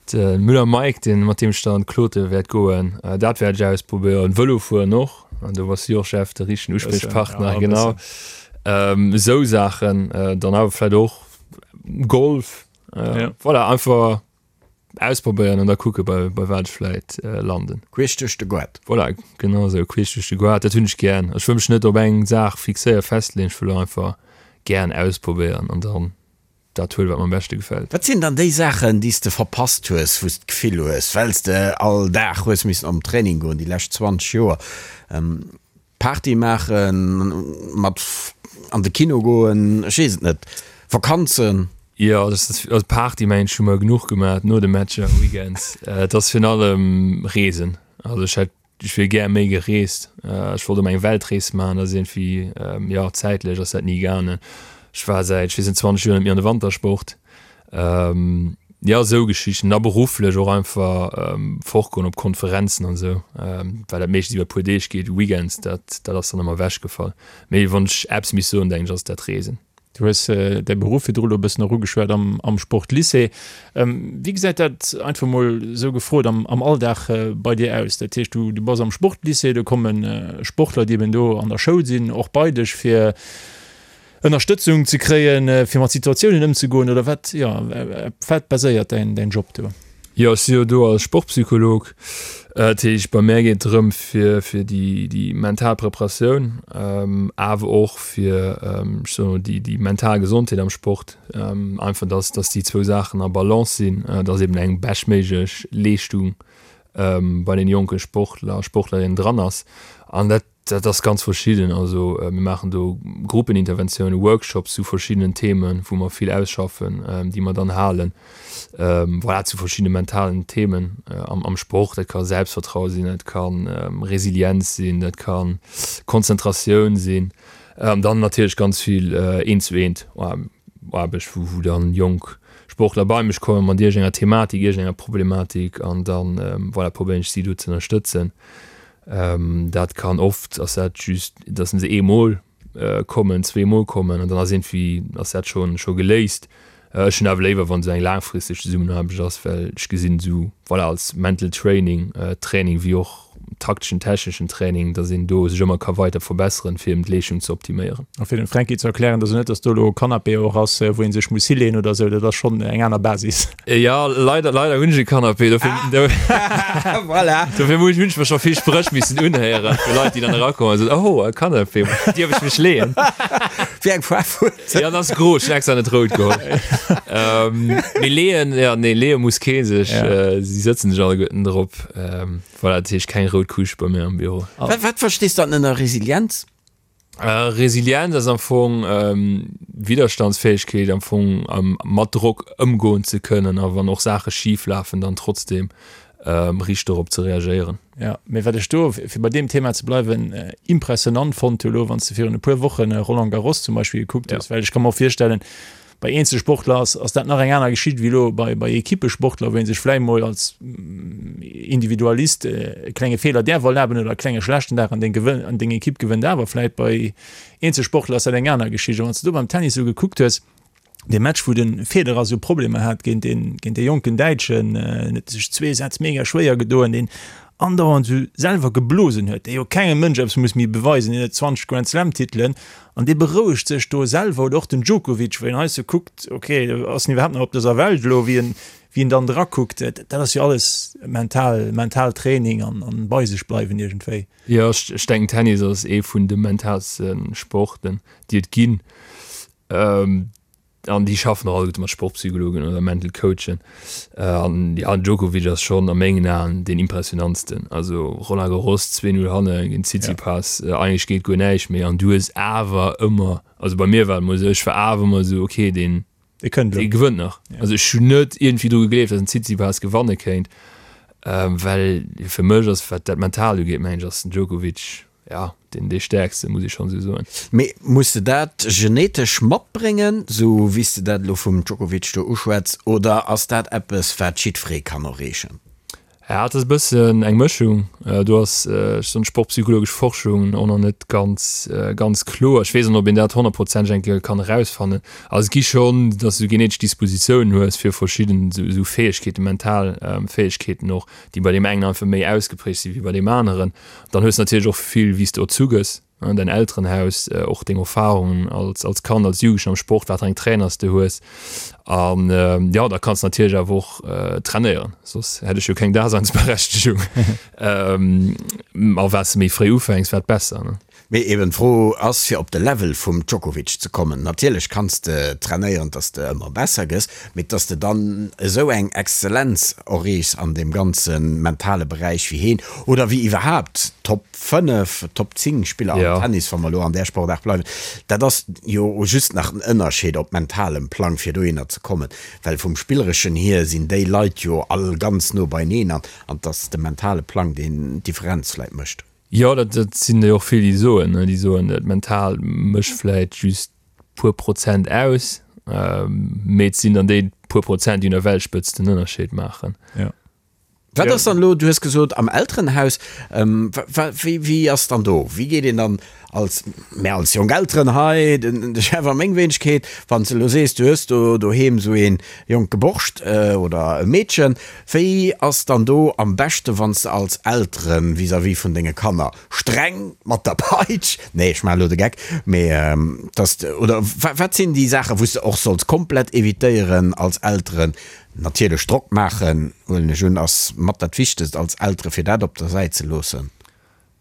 De Müller Mike, deen, mat deem ech dann klotere wäert goen, dat wäert ech ausprobéieren. Vëlo fueren och, an do bass du jo och, Jeff, de richtegen Uspriechpartner, genau. Esou Saachen, dann awer vläicht och Golf, voilà, einfach ausprobéieren an da kucke bei, bei wat ech vläicht landen. Queesch duerch de Goart. Voilà, genau esou, queesch duerch de Goart, dat hunn ech gären. Ech wëll mech net op eng Saach fixéieren, festleeën, ech wëll einfach gären ausprobéieren an dann dat huelen, wat mer am beschte gefält. Wat sinn dann déi Saachen, déi s de verpasst hues, wou s d'Gefill hues, well s de all Dag hues missen op den Training goen déi lescht 20 Joer, Party maachen, mat an de Kino goen, ech weess et net, Vakanzen? Jo, also Party mengen ech hu mer genuch gemaach no de Matcher weekends. Et ass virun allem Reesen. Also ech hätt Ech wier gär méi gereest. Ech wollt ëmmer eng Weltrees maachen, dat ass iergendwéi, jo, zäitlech ass dat ni gaangen. Ech war säit, ech weess net, 20 Joer net méi an de Wantersport. Jo, esou Geschichten. A berufflech och einfach fortgoen op Konferenzen an esou, well dat meeschtens iwwer e puer Deeg geet, Weekends, dat, dat ass dann ëmmer ewechgefall. Mee wann ech eppes misst soen, denken ech, ass et dat Reesen. Du hues däi Beruff virdru lo e bëssen och ugeschwat am Sportlycée. Wéi gesäit dat, einfach mol esou gefrot, am Alldag bei dir aus? Dat heescht, du bass am Sportlycée, do komme Sportler, déi eben do an der Schoul sinn, och bei dech, fir Ënnerstëtzung ze kréien, fir mat Situatiounen ëmzegoen, oder wat, jo, op wat baséiert däin Job do? Jo, ech si jo do als Sportpsycholog. Dat heescht, bei mär geet et drëm, fir fir déi déi mental Preparatioun, awer och fir, ech soen emol, déi déi mental Gesondheet am Sport. Einfach, dass dass déi zwou Saachen a Balance sinn, dass eben eng beschtméiglech Leeschtung bei den jonke Sportler a Sportlerinnen dran ass. An dat Dat ass ganz verschidden. Also mir maachen do Gruppeninterventiounen, Workshops zu verschiddenen Themen, wou mer vill ausschaffen, déi mer dann halen, voilà, zu verschiddene mentalen Themen am Sport. Dat ka Selbstvertraue sinn, dat ka Resilienz sinn, dat ka Konzentratioun sinn. An dann natierlech ganz vill eent zu eent Aarbecht, wou dann jonk Sportler bei mech komme mat iergendenger Thematik, iergendenger Problematik an dann, voilà, probéieren ech si do ze ënnerstëtzen. Dat kann oft ass dat just, datt se eemol kommen, zweemol kommen an dann ass iergendwéi ass dat scho scho geléist. Ech hunn awer léiwer, wann esou eng laangfristeg Zesummenaarbecht ass, well ech gesinn esou, voilà, als Mental Training, Training wéi och takteschen, techneschen Training, datt een do sech ëmmer ka weider verbesseren, fir eben d'Leeschtung ze optiméieren. A fir dem Franky ze erklären, dat ass net, datt do elo e Canapé och ass, wou ee sech muss hileeën oder esou, dat ass schonn eng aner Basis. Ja, leider, leider hunn ech e Canapé, dofir, ah. voilà. dofir muss ech mir scho vill Spréch missen unhéieren vu Leit, déi dann erakommen an soen, oh, e Canapé, dierf ech mech leeën? Wéi eng Faarf huet en? Ja, dat ass gro, ech hunn extra net rout geholl. ähm, mee leeën, ja, nee, leeë muss kee sech, ja. äh, si sëtzen sech alleguerten drop. Ähm, voilà, dat heescht keng rout Couche bei mir am Büro. Wat, wat verstees du dann ënner Resilienz? Resilienz ass am Fong Widderstandsfäegkeet, am Fong mat Drock ëmgoen ze kënnen a wann och Saache schif lafen, dann trotzdeem riicht dorop ze reagéieren. Jo, mee wat ech do, fir bei deem Thema ze bleiwen, impressionant fonnt hu lo, wann s de virun e puer Wochen Roland Garros zum Beispill gekuckt hues, well ech ka mer och virstellen, Bei Eenzelsportler ass, ass dat nach eng aner Geschicht wéi elo bei, bei Ekippesportler, wou ee sech vläicht mol als Individualist e klenge Feeler däerf erlaben oder e klenge schlechten Dag an deng gewënn, an deng Ekipp gewënnt awer vläicht. Bei Eenzelsportler ass dat eng aner Geschicht. A wann s de do beim Tennis esou gekuckt hues, dee Match, wou de Federer esou Problemer hat géint deen, géint dee jonken Däitschen, en huet sech zwee Sätz mega schwéier gedoen, deen andauernd esou selwer geblosen huet, dee jo kengem Mënsch eppes muss méi beweisen, deen huet 20 Grand Slam Titelen an dee berouegt sech do selwer, oder och den Djokovic, wou een hei sou kuckt, ok, ass en iwwerhaapt nach op dëser Welt elo, wéi en, wéi en dann drakuckt, dat ass jo alles mental, mental Training an, an bei sech bleiwen iergendwéi. Jo, ech, ech denken Tennis ass ee vun de mentalste Sporten, déi et ginn. An déi schaffen och alleguerte mat Sportpsychologen oder Mental Coachen. An ja, den Djokovic ass schonn a mengen Aen deen impressionantsten. Also Roland Garros 2-0 hanne géint Tsitsipas, eigentlech geet guer näischt méi an du hues awer ëmmer, also bei mir war et emol esou, ech war awer ëmmer esou, okay, deen, Dee kënnt elo. Dee gewënnt nach. Also ech hunn net iergendwéi dru gegleeft, datt den Tsitsipas gewanne kéint, well fir mech ass, wat dat Mentalt ugeet, mengen ech, ass den Djokovic Ja, deen dee Stäerkste, muss ech schonn esou soen. Mee muss de dat genetesch matbréngen, sou wéi s de dat elo vum Djokovic do uschwätz, oder ass dat eppes, wat jiddweree kann erreechen? Ja, et ass e bëssen eng Mëschung. Do ass, ech soen, d'sportpsychologesch Forschung och nach net ganz, ganz kloer. Ech weess och net, ob een dat honnertprozenteg eng Kéier kann erausfannen. Also et gi schonn, datt s du genetesch Dispositiounen hues fir verschidden esou Fäegkeeten, mental Fäegkeeten och, déi bei deem engen einfach méi ausgeprägt si wéi bei deem aneren. Dann hues de natierlech och vill, wéi s de erzu gëss. Däin Elterenhaus, och deng Erfahrungen als als Kand, als Jugendlechen am Sport, wat fir eng Trainer s de hues. An jo, da kanns de natierlech awer och trainéieren, soss hätt ech jo keng Daseinsberechtegung. A wat s de méi fréi ufänks, wat besser, ne? Mee eben d'Fro ass, fir op de Level vum Djokovic ze kommen, natierlech kanns de trainéieren, dass de ëmmer besser gëss, mee dass de dann esou eng Exzellenz erreechs an deem ganze mentale Beräich wéi heen oder wéi iwwerhaapt Top 5, Top 10 Spiller am Tennis, wa mer elo an där Sportaart bleiwen, dat ass jo just nach en Ënnerscheed op mentalem Plang, fir dohinner ze kommen, well vum Spillereschen hier sinn déi Leit jo all ganz no beineen an et ass de mentale Plang, deen d'Differenz vläit mécht. Jo, dat sinn der jo och vill, déi soen, déi soen, dat Mental mécht vläit just puer Prozent aus, mee et sinn dann déi puer Prozent, déi un der Weltspëtzt den Ënnerscheed maachen. Wat ass dann elo, du hues gesot am Elterenhaus, wéi wéi ass dann do, wéi geet een dann als, mär als jonk Elteren hei, den de Chef a meng Wéinegkeet, wann s de elo sees, du hues do doheem esou ee jonke Borscht oder e Meedchen, wéi ass dann do am beschte wann s de als Eltere vis-à-vis vun denge Kanner streng mat der Peitsch, nee ech maachen elo de Geck, mee dass de, oder wat sinn déi Saachen, wou s de och solls komplett evitéieren als Elteren, Natierlech Drock maachen, huelen ech un, ass mat dat Wichtegst als Eltere fir dat op der Säit ze loossen.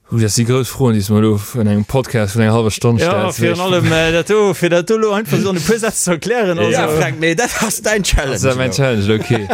Hu, dat si grouss Froen, déi s de mer elo an engem Podcast vun enger hallwer Stonn stells. Jo, virun allem dat do, fir dat do elo einfach esou an e puer Sätz ze erklären. Also. Ja, Fränk, mee dat ass däin Challenge elo. Dat ass mäin Challenge, okay.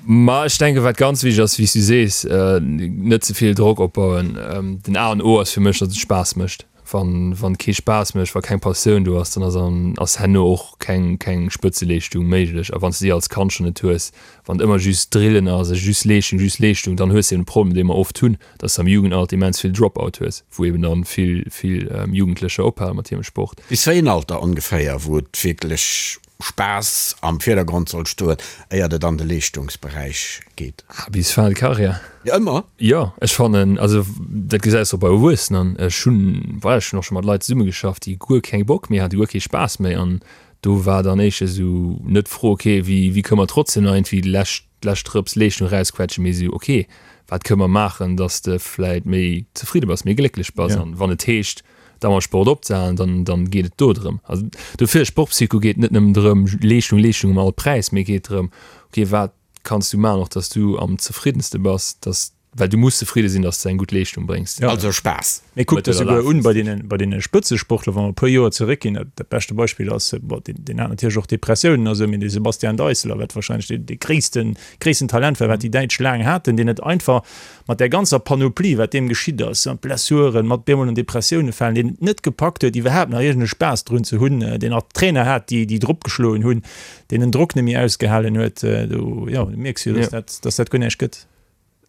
Ma ech denken, wat ganz wichteg ass, wéi s du sees, net ze vill Drock opbauen. Den A an O ass fir mech, datt et Spaass mécht. Wann wann kee Spaass mécht, wa keng Passioun do ass, dann ass an ass herno och keng keng Spëtzeleeschtung méiglech. A wann s de déi als Kand schonn net hues, wann et ëmmer just Drillen ass a just Leeschtung, just Leeschtung, dann hues de eben de Problem, dee mer oft hunn, dass de am Jugendalter immens vill Drop-out hues, wou eben dann vill vill Jugendlecher ophale mat hirem Sport. Bis wéi en Alter ongeféier, wou et wierklech Spaass am Virdergrond soll stoen, éiert et an de Leeschtungsberäich geet? Ah, bis fin de carrière. Jo, ëmmer? Jo, ech fannen, also dat gesäis de och bei Erwuessenen. Ech hunn, voilà, ech hunn och scho mat Leit zesummegeschafft, déi guer keng Bock méi haten, guer kee Spaass méi. An do war dann éischter esou net d'Fro, okay, wéi, wéi kënne mer trotzdem nach iergendwéi déi lescht, lescht Drëps Leeschtung erausquetschen, mee esou, okay, wat kënne mer maachen, dass de vläit méi zefridde bass, méi glécklech bass. An wann et heescht, da mam Sport opzehalen, dann, dann geet et do drëm. Also dofir, Sportpsycho geet net nëmmen drëm, Leeschtung, Leeschtung um all Präis, mee geet drëm, okay, wat kanns du maachen, och dass du am zefriddenste bass, dass, well du muss zefridde sinn, dass du eng gutt Leeschtung bréngs. Ja. Also Spaass. Mee kuck der souguer un bei deenen, bei deene Spëtzesportler, wa mer e puer Joer zeréckginn, dat, dat beschte Beispill ass, bon, deen, deen hat natierlech och Depressiounen a sou, mee de Sebastian Deisseler, wat wahrscheinlech dee, dee gréissten, gréissten Talent war, wat déi Däitsch laang haten, deen et einfach mat där ganzer Panoplie, wat deem geschitt ass, mat Blessuren, mat bemol an Depressioune falen, deen et net gepackt huet, iwwerhaapt nach iergend e Spaass drun ze hunn, deen nach Trainer hat, déi, déi drop geschloen hunn, deen den Drock net méi ausgehalen huet, do, jo, do mierks du jo, dass dat, dass dat guer näischt gëtt.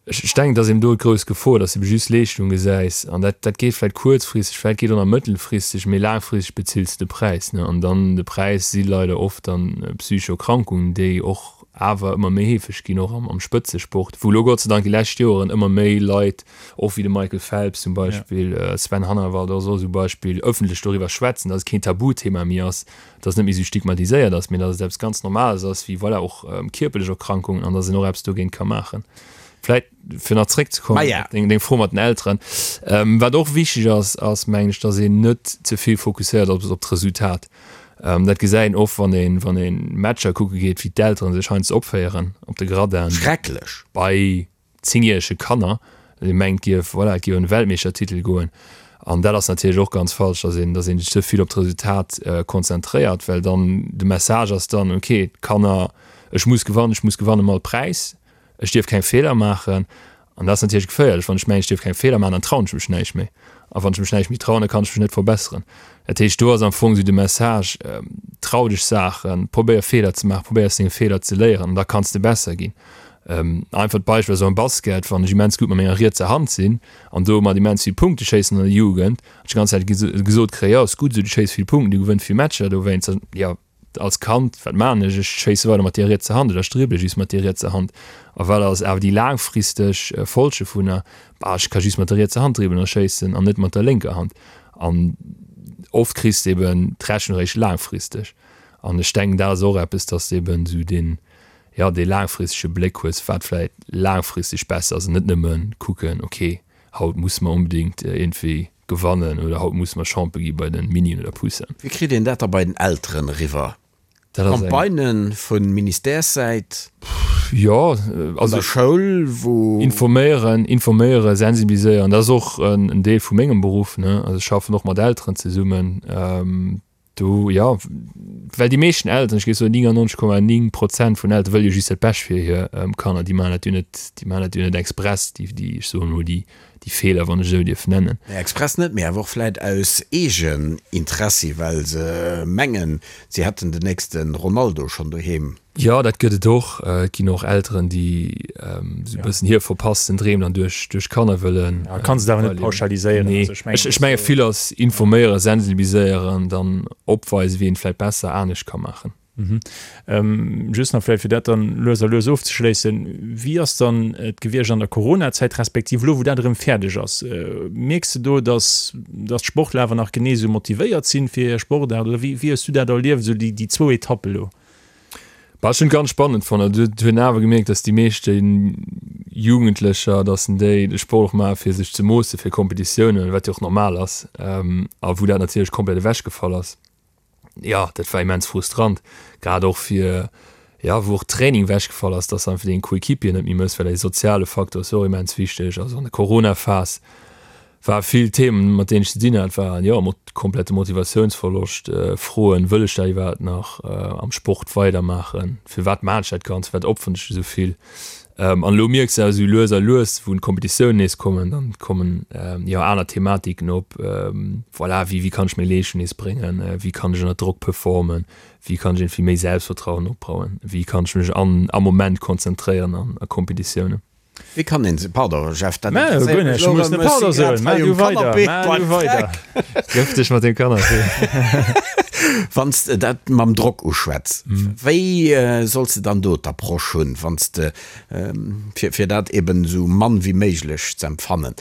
Ech denken, et ass eben do d'grouss Gefor, dass du ebe just Leeschtung gesäis an dat, dat geet vläicht kuerzfristeg, vläicht geet och nach mëttelfristeg, mee laangfristeg bezills de de Präis, ne? An dann de Präis si leider oft dann psychesch Erkrankungen, déi och awer ëmmer méi heefeg ginn, och am Spëtzesport, wou elo Gott sei Dank déi lescht Joeren ëmmer méi Leit, och wéi de Michael Phelps zum Beispill, Sven Hannawald ass och esou e Beispill, ëffentlech doriwwer schwätzen, datt et keen Tabuthema méi ass, datt et net méi esou stigmatiséiert ass, mee datt et eppes ganz Normales ass, wéi voilà och kierperlech Erkrankungen an datt een och eppes dogéint ka maachen. Vläit fir nach zréckzekommen op deng Fro mat den Elteren, wat och wichteg ass, ass mengen ech, datt een net ze vill fokusséiert ass op d'Resultat. Dat gesäit een oft, wann een, wann een Matcher kucke geet, wéi d'Elteren sech heiansdo opféieren op de Gradin. Schrecklech! Bei zéngjärege Kanner, dee mengt gief, voilà, et géif ëm de Weltmeeschtertitel goen. An dat ass natierlech och ganz falsch, dass een, dass een sech ze vill op d'Resultat konzentréiert, well dann de Message ass dann, okay, d'Kanner, ech muss gewannen, ech muss gewannen ëm all Präis. Ech dierf keng Feeler maachen. An dat ass natierlech geféierlech. Wann ech mengen, ech dierf keng Feeler maachen, dann trauen ech mech näischt méi. A wann ech mech näischt méi trauen, da kann ech mech net verbesseren. Dat heescht, do ass am Fong esou de Message, Trau dech Saachen, probéier Feeler ze maachen, probéier aus denge Feeler ze léieren an da kanns de besser ginn. Einfacht Beispill ass och am Basket, wann ech immens gutt mat menger rietser Hand sinn an domat immens vill Punkte schéissen an der Jugend, an ech déi ganz Zäit gesot kréien, jo, ass gutt esou, du schéiss vill Punkten, du gewënns vill Matcher dowéinst, dann, jo. Als Kand, wat maachen ech? Ech schéisse weider mat deer rietser Hand oder ech dribbele just mat deer rietser Hand. A wat ass awer déi laangfristeg Folge dovunner? Bah, ech ka just mat der rietser Hand dribbelen a schéissen an net mat der lénker Hand. An oft kriss de eben d'Rechnung eréischt laangfristeg. An ech denken, dat ass och eppes, dass de eben esou deen, jo, dee laangfristege Bléck hues, wat vläicht laangfristeg besser ass an net nëmme kucken, okay, haut musse mer onbedéngt iergendwéi gewannen oder haut musse mer Champion gi bei de Minien oder Poussinen. Wéi kritt een dat da bei den Elteren eriwwer? Campagnen vu Ministèressäit? Jo, also. An der Schoul, wou. Informéieren, informéieren, sensibiliséieren, dat ass och en Deel vu mengem Beruff, ne. Also ech schaffen och mat Elteren zesummen. Do, jo, well déi meeschten Elteren, ech géif soen 99,9 Prozent vun Eltere wëlle jo just dat Bescht fir hir Kanner. Déi maachen dat jo net, déi maachen dat jo net express, déi, déi, ech soen emol, déi, déi Feeler, wann ech esou dierf nennen. Nee, express net, mee awer och vläit aus Eegeninteressi, well se mengen, si hätten den nächste Ronaldo schonn doheem. Jo, dat gëtt et och. Et ginn och Elteren, déi esou e bëssen hir verpassten Dreem dann duerch duerch Kanner wëllen. Ja, kanns et awer net pauschaliséieren. Nee, ech ech menge vill ass informéieren, sensibiliséieren, dann opweisen, wéi een et vläicht besser anescht ka maachen. Just nach vläicht, fir dat dann lues a lues ofzeschléissen, Wéi ass dann et gewiescht an der Coronazäit, respektiv elo wou dat erëm fäerdeg ass? Mierks de do, datt datt d'Sportler awer nach genee esou motivéiert sinn fir hir Sportaart oder wéi wéi hues du dat erlieft, esou déi déi zwou Etappe elo? Bah, ech hunn et ganz spannend fonnt. Also et hunn awer gemierkt, dass déi meeschte Jugendlecher, dass en déi de Sport och maache fir sech ze moosse fir Kompetitiounen, wat jo och normal ass, a wou dat natierlech komplett ewechgefall ass. Jo, dat war immens frustrant, grad och fir, jo, wou och Training ewechgefall ass, dass einfach deng Coéquipier net méi mëss, well dee soziale Faktor ass jo och immens wichteg. Also an der Corona-Phas War vill Themen mat deenen ech ze dinn hat, waren jo komplette Motivatiounsverloscht, Froen, wëll ech dat iwwerhaapt nach am Sport weidermaachen, firwat maan ech dat Ganzt, firwat opferen ech esou vill? An elo mierks de awer esou lues a lues, wou d'Kompetitiounen nees kommen, dann kommen jo aner Thematiken op, voilà, wéi wéi kann ech meng Leeschtung nees bréngen, wéi kann ech ënner Drock performen, wéi kann ech iergendwéi méi Selbstvertrauen opbauen, wéi kann ech mech an am Moment konzentréieren an a Kompetitiounen. Wéi kann een se, pardon Jeff, dat interesséiert mech elo erëm, ech si grad hei um Canapé beim Freck. Gëff dech mat dem Canapé. Wann s de dat mam Drock uschwätz, wéi solls de dann do d'Approche hunn, wann s de, fir dat eben esou mann wéi méiglech z'empfannen?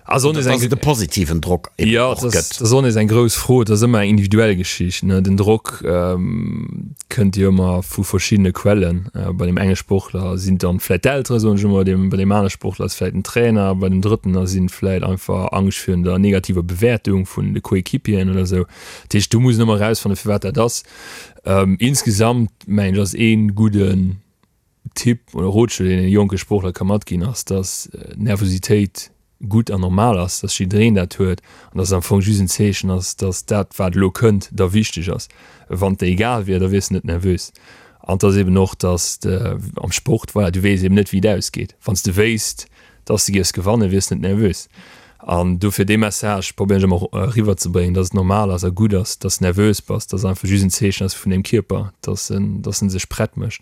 Also Dass et e positiven Drock eben och gëtt. Dat ass och nees eng grouss Fro. Et ass ëmmer eng individuell Geschicht. Den Drock kënnt jo ëmmer vu verschiddene Quellen. Bei deem enge Sportler sinn et dann vläicht d'Eltere soen ech ëmmer, bei deem anere Sportler ass et vläicht den Trainer, bei deem drëtten ass et vläicht einfach Angscht virun der negativer Bewäertung vun de Coéquipieren oder esou. Dat heescht, do muss een ëmmer erausfannen, firwat dat ass. Insgesamt mengen ech ass ee gudden Tipp oder Rotschlo, deen een jonke Sportler ka matginn, ass, dass Nervositéit gutt an normal ass, dass jiddereen dat huet an dass et am Fong just en Zeechen ass, dass dat, wat elo kënnt, der wichteg ass. Wann et der egal wier, da wiers de net nervös. An et ass eben och, dass de am Sport, voilà, du weess eben net, wéi et ausgeet. Wann s de wéisst, dass de giffs gewannen, wiers de net nervös. An dofir dee Message probéieren ech ëmmer eriwwerzebréngen, dass et normal ass a gutt ass, dass de nervös bass, dass et einfach just en Zeechen ass vun deem Kierper, dass en, dass en sech prett mécht.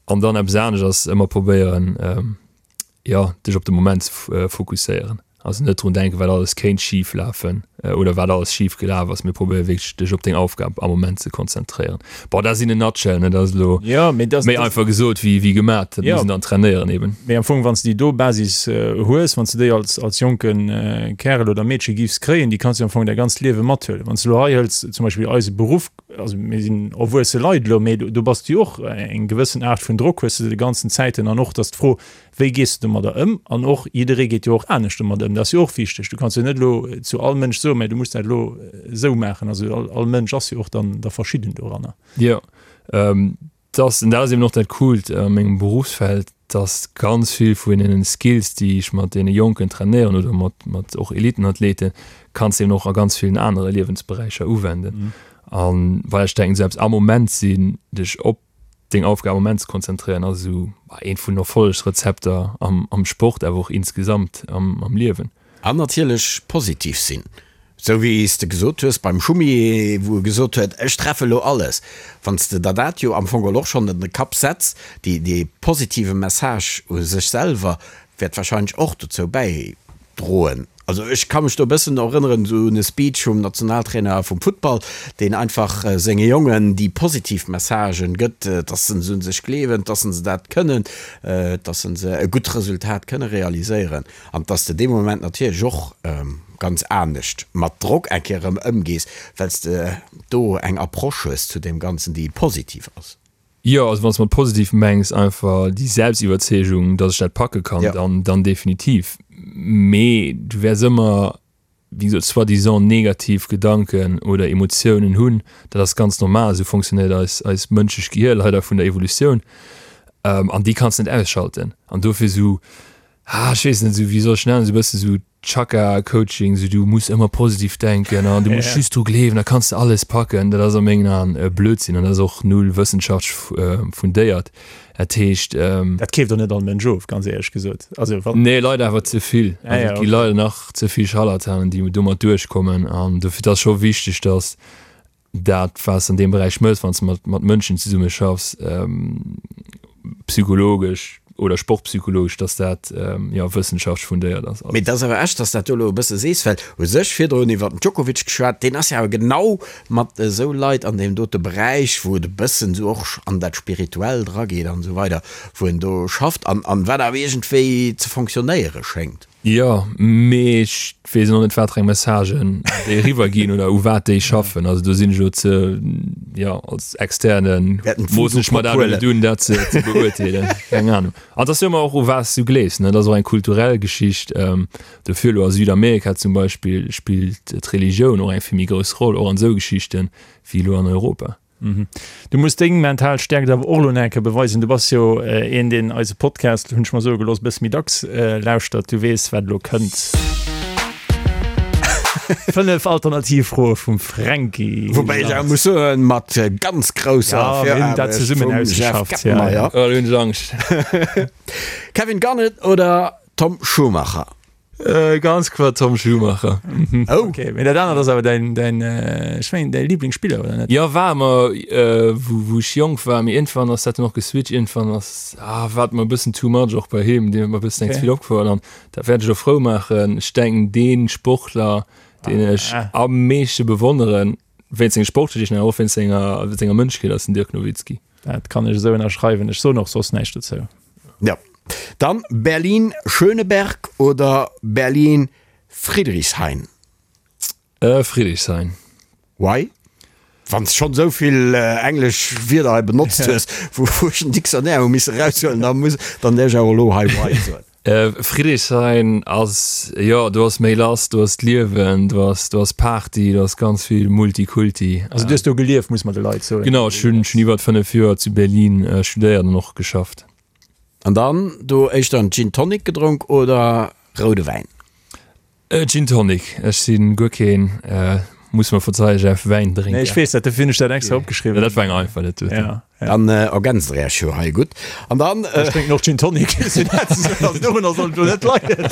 An dann eppes anescht ass ëmmer probéieren, jo, dech op de Moment ze fokusséieren. Also net drun denken, wat alles kéint schif lafen oder wat alles schif gelaf ass, mee probéier wierklech dech op deng Aufgab am Moment ze konzentréieren. Bon, dat ass in a nutshell, ne, dat ass elo méi einfach gesot wéi wéi gemat, dat muss een dann trainéieren eben. Mee am Fong, wann s de déi do Basis hues, wann s de déi als als jonke Kärel oder Meedche giffs kréien, déi kanns du am Fong däi ganzt Liewe mathuelen. Wann s de elo hei hëls zum Beispill eise Beruff, also mir sinn erwuesse Leit elo, mee do bass du jo och eng gewëssen Aart vun Drock hues de de ganzen Zäiten an och, dass d'Fro, Wéi gees de domadder ëm? An och jidderee geet jo och anescht domadder ëm. Dat ass jo och wichteg. Du kanns jo net elo zu all Mënsch soen, mä du muss dat elo esou maachen. Also all, all Mënsch ass jo och dann da verschidden doranner. Jo, dat, an dat ass eben och dat Coolt a mengem Beruffsfeld, dass ganz vill vun deenen Skills, déi ech mat deene Jonken trainéieren oder mat, mat och Elitenathleten, kanns de eben och a ganz villen anere Liewensberäicher uwenden. An well ech denken, selbst am Moment sinn, dech op deng Aufgab am Moment ze konzentréieren ass esou eent vun den Erfollegsrezepter am am Sport, awer och insgesamt am am Liewen. An natierlech positiv sinn, esou wéi s de gesot hues beim Schumi, wou e gesot huet, ech treffe lo alles. Wann s de der dat jo am Fong geholl och schonn an de Kapp setz, déi dee positive Message u sech selwer wäert wahrscheinlech och dozou bäidroen. Also ech ka mech do e bëssen erënneren esou un e Speech vum Nationaltrainer vum Futtball, deen einfach senge Jongen déi positiv Messagen gëtt, dass se un sech gleewen, dass se dat kënnen, dass se e gutt Resultat kënne realiséieren an dass de dee Moment natierlech och ganz anescht mat Drock eng Kéier erëm ëmgees, well s de do eng Approche hues zu deem Ganzen, déi positiv ass. Jo, also wann s de mat positiv mengs einfach déi Selbstiwwerzeegung, dass ech dat packe kann, dann, dann definitiv. Mee du wäers ëmmer, wéi gesot, soi-disant negativ Gedanken oder Emotiounen hunn. Dat ass ganz normal, esou fonctionnéiert eis, eist mënschlecht Gehier leider vun der Evolutioun. An déi kanns de net ausschalten. An dofir esou, ah, ech weess net, esou, wéi soll ech nennen, esou e bësse sou Chaka-Coaching, esou du muss ëmmer positiv denken an du muss just dru gleewen, da kanns de alles packen, dat ass a mengen Aen Blödsinn an dat ass och null wëssenschaftlech fundéiert. Dat heescht. Dat keeft och net all Mënsch of, ganz éierlech gesot. Also wann. Nee, leider awer ze vill. Also et gi leider nach ze vill Scharlatanen, déi domat duerchkommen an dofir, et ass scho wichteg, datt dat wat s de an deem Beräich mëss, wann s de mat, mat Mënschen zesumme schaffs, psychologesch oder sportpsychologesch, dass dat jo wëssenschaftlech fundéiert ass. Mee et ass awer echt, dass dat do elo e bësse sees, well u sech virdrun iwwer den Djokovic geschwat, deen ass jo awer genau mat esou Leit an deem dote Beräich, wou et e bëssen esou och an dat Spirituellt erageet an esou weider, wou en do schafft an wat awer iergendwéi ze fonctionnéiere schéngt. Jo, mee ech weess och net watereng Messagen déi eriwwer ginn oder u wat déi schaffen. Also do sinn ech elo ze, jo, als Externen moossen ech mer dat elo net un, dat ze beurteelen. Keng Ahnung. An et ass jo ëmmer och u wat s du gleefs, ne? Dat ass och eng kulturell Geschicht. Dofir elo a Südamerika zum Beispill spillt d'Religioun och eng vill méi grouss Roll, och an esou Geschichten, wéi elo an Europa. Du muss deng mental Stäerkt awer och elo nach eng Kéier beweisen. Du bass jo een, deen eise Podcast, hunn ech mer soe gelooss, e bësse méi dacks lauschtert. Du weess, wat elo kënnt. 5 alternativ Froe vum Fränki. Woubäi ech awer muss soen, mat ganz grousser Ja, mir hunn dat Viraarbecht zesummen vum Jeff ausgeschafft, ja. Gettenmeyer. Oh, elo hunn ech Angscht. Kevin Garnett oder Tom Schumacher? Ganz kloer Tom Schumacher. Oh. Okay, mee dat anert ass awer däin, däin, ech mengen däi Liblingsspiller, oder net? Jo, war ëmmer, wou, wou ech jonk war, mee iergendwann ass dat dann och geswitcht. Iergendwann ass, ah, war et mer e bëssen too much och bei him, deen huet mer e bëssen eng ze vill opgefuer an dat wäert ech och frou maachen. Ech denken, dee Sportler, deen ech am meeschte bewonneren, wéinst senge Sportgeschichten awer och wéinst senger, senger Mënschkeet, ass den Dirk Nowitzki. Dat kann ech esou ënnerschreiwen. Ech soen och soss näischt dozou. Jo. Dann Berlin-Schöneberg oder Berlin-Friedrichshain? Friedrichshain. Why? Wann s schonn esou vill englesch Wierder hei benotzt hues, wou ech den Dictionnaire hu misse eraushuelen, da muss, dann däerf ech awer elo hei why soen. Friedrichshain ass, jo, do ass méi lass, do ass d'Liewen, do ass, do ass Party, do ass ganz vill Multikulti. Also du hues do gelieft, muss mer de Leit soen. Genau, ech hunn iwwert 5 Joer zu Berlin studéiert an och geschafft. An dann do éischter en Gin Tonic gedronk oder roude Wäin? Gin Tonic, ech si guer keen, muss mer verzeien, Jeff, Wäindrénker. Nee, ech weess dat, dofir hunn ech dat extra opgeschriwwen. Dat war eng einfach, dat doten. Ja, ja. Dann ergänzt der Iech jo hei gutt. An dann. Ech drénken och Gin Tonic, also dorunner soll et elo net leien.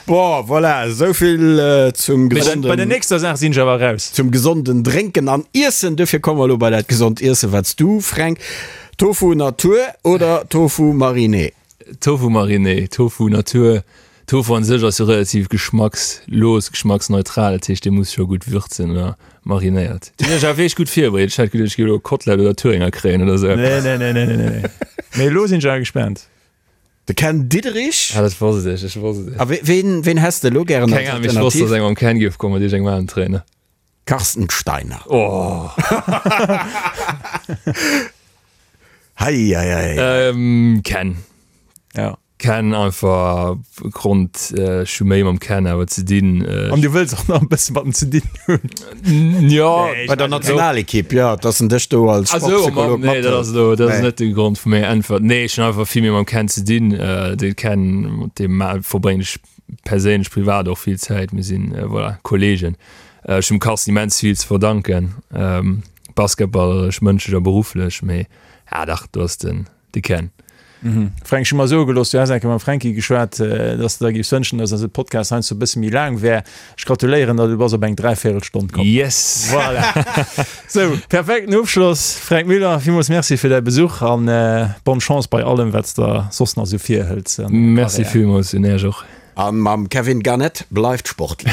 Bon, voilà, esou vill zum gesonden. Bei der nächster Saach sinn ech awer raus. Zum gesonden Drénken an Iessen. Dofir komme mer elo bei dat gesond Iessen, wat s du, Fränk, Tofu Natur oder Tofu Mariné? Tofu Mariné, Tofu Natur. Tofu an sech ass jo relativ geschmackslos, geschmacksneutral, dat heescht dee muss scho gutt würzen oder marinéiert. Du hunn ech awer wierklech gutt virbereet, ech hätt geduecht ech géif elo Kotlett oder Thüringer kréien oder sou eppes. Nee, nee, nee, nee, nee, nee. Mee elo sinn ech awer gespaant. De Ken Diederich. Ah, dat wosst ech, ech wosst et. A ween, ween häss de elo gären als Keng Ahnung, mee ech wosst, dass eng mam Ken géif kommen, mat iergendengem aneren Trainer. Carsten Steiner. Oh. Hei, hei, hei. Ähm, Ken. Ja. Ken einfach Grond ech hu méi mam Ken awer ze dinn. An du wëlls och nach e bësse mat em ze dinn hunn. Jo. Bei der Nationalekipp, jo, dass en dech do als Sportpsycholog mathëlt. Nee, dat ass elo, dat ass net de Grond vu menger Äntwert. Nee, ech hunn einfach vill méi mam Ken ze dinn. De Ken, mat deem verbréngen ech perséinlech, privat och vill Zäit. Mir sinn, voilà, Kollegen. Ech hunn dem Carsten immens vill ze verdanken, basketballeresch, mënschlech a berufflech, mee ja dach, do ass den de Ken. Fränk, ech hu mer soe gelooss, du häss eng Kéier mam Fränki geschwat, dass de der géifs wënschen, dass eise Podcast heiansdo e bësse méi laang wär. Ech gratuléieren der, du bass op eng Dräivéierelstonn komm. Yes! Voilà! Sou, perfekten Ofschloss. Fränk Müller, villmools Merci fir däi Besuch an bonne Chance bei allem, wat s de soss nach esou virhëls an denger Karriär. Merci villmools un Äech och. A mam Kevin Garnett, bleift sportlech.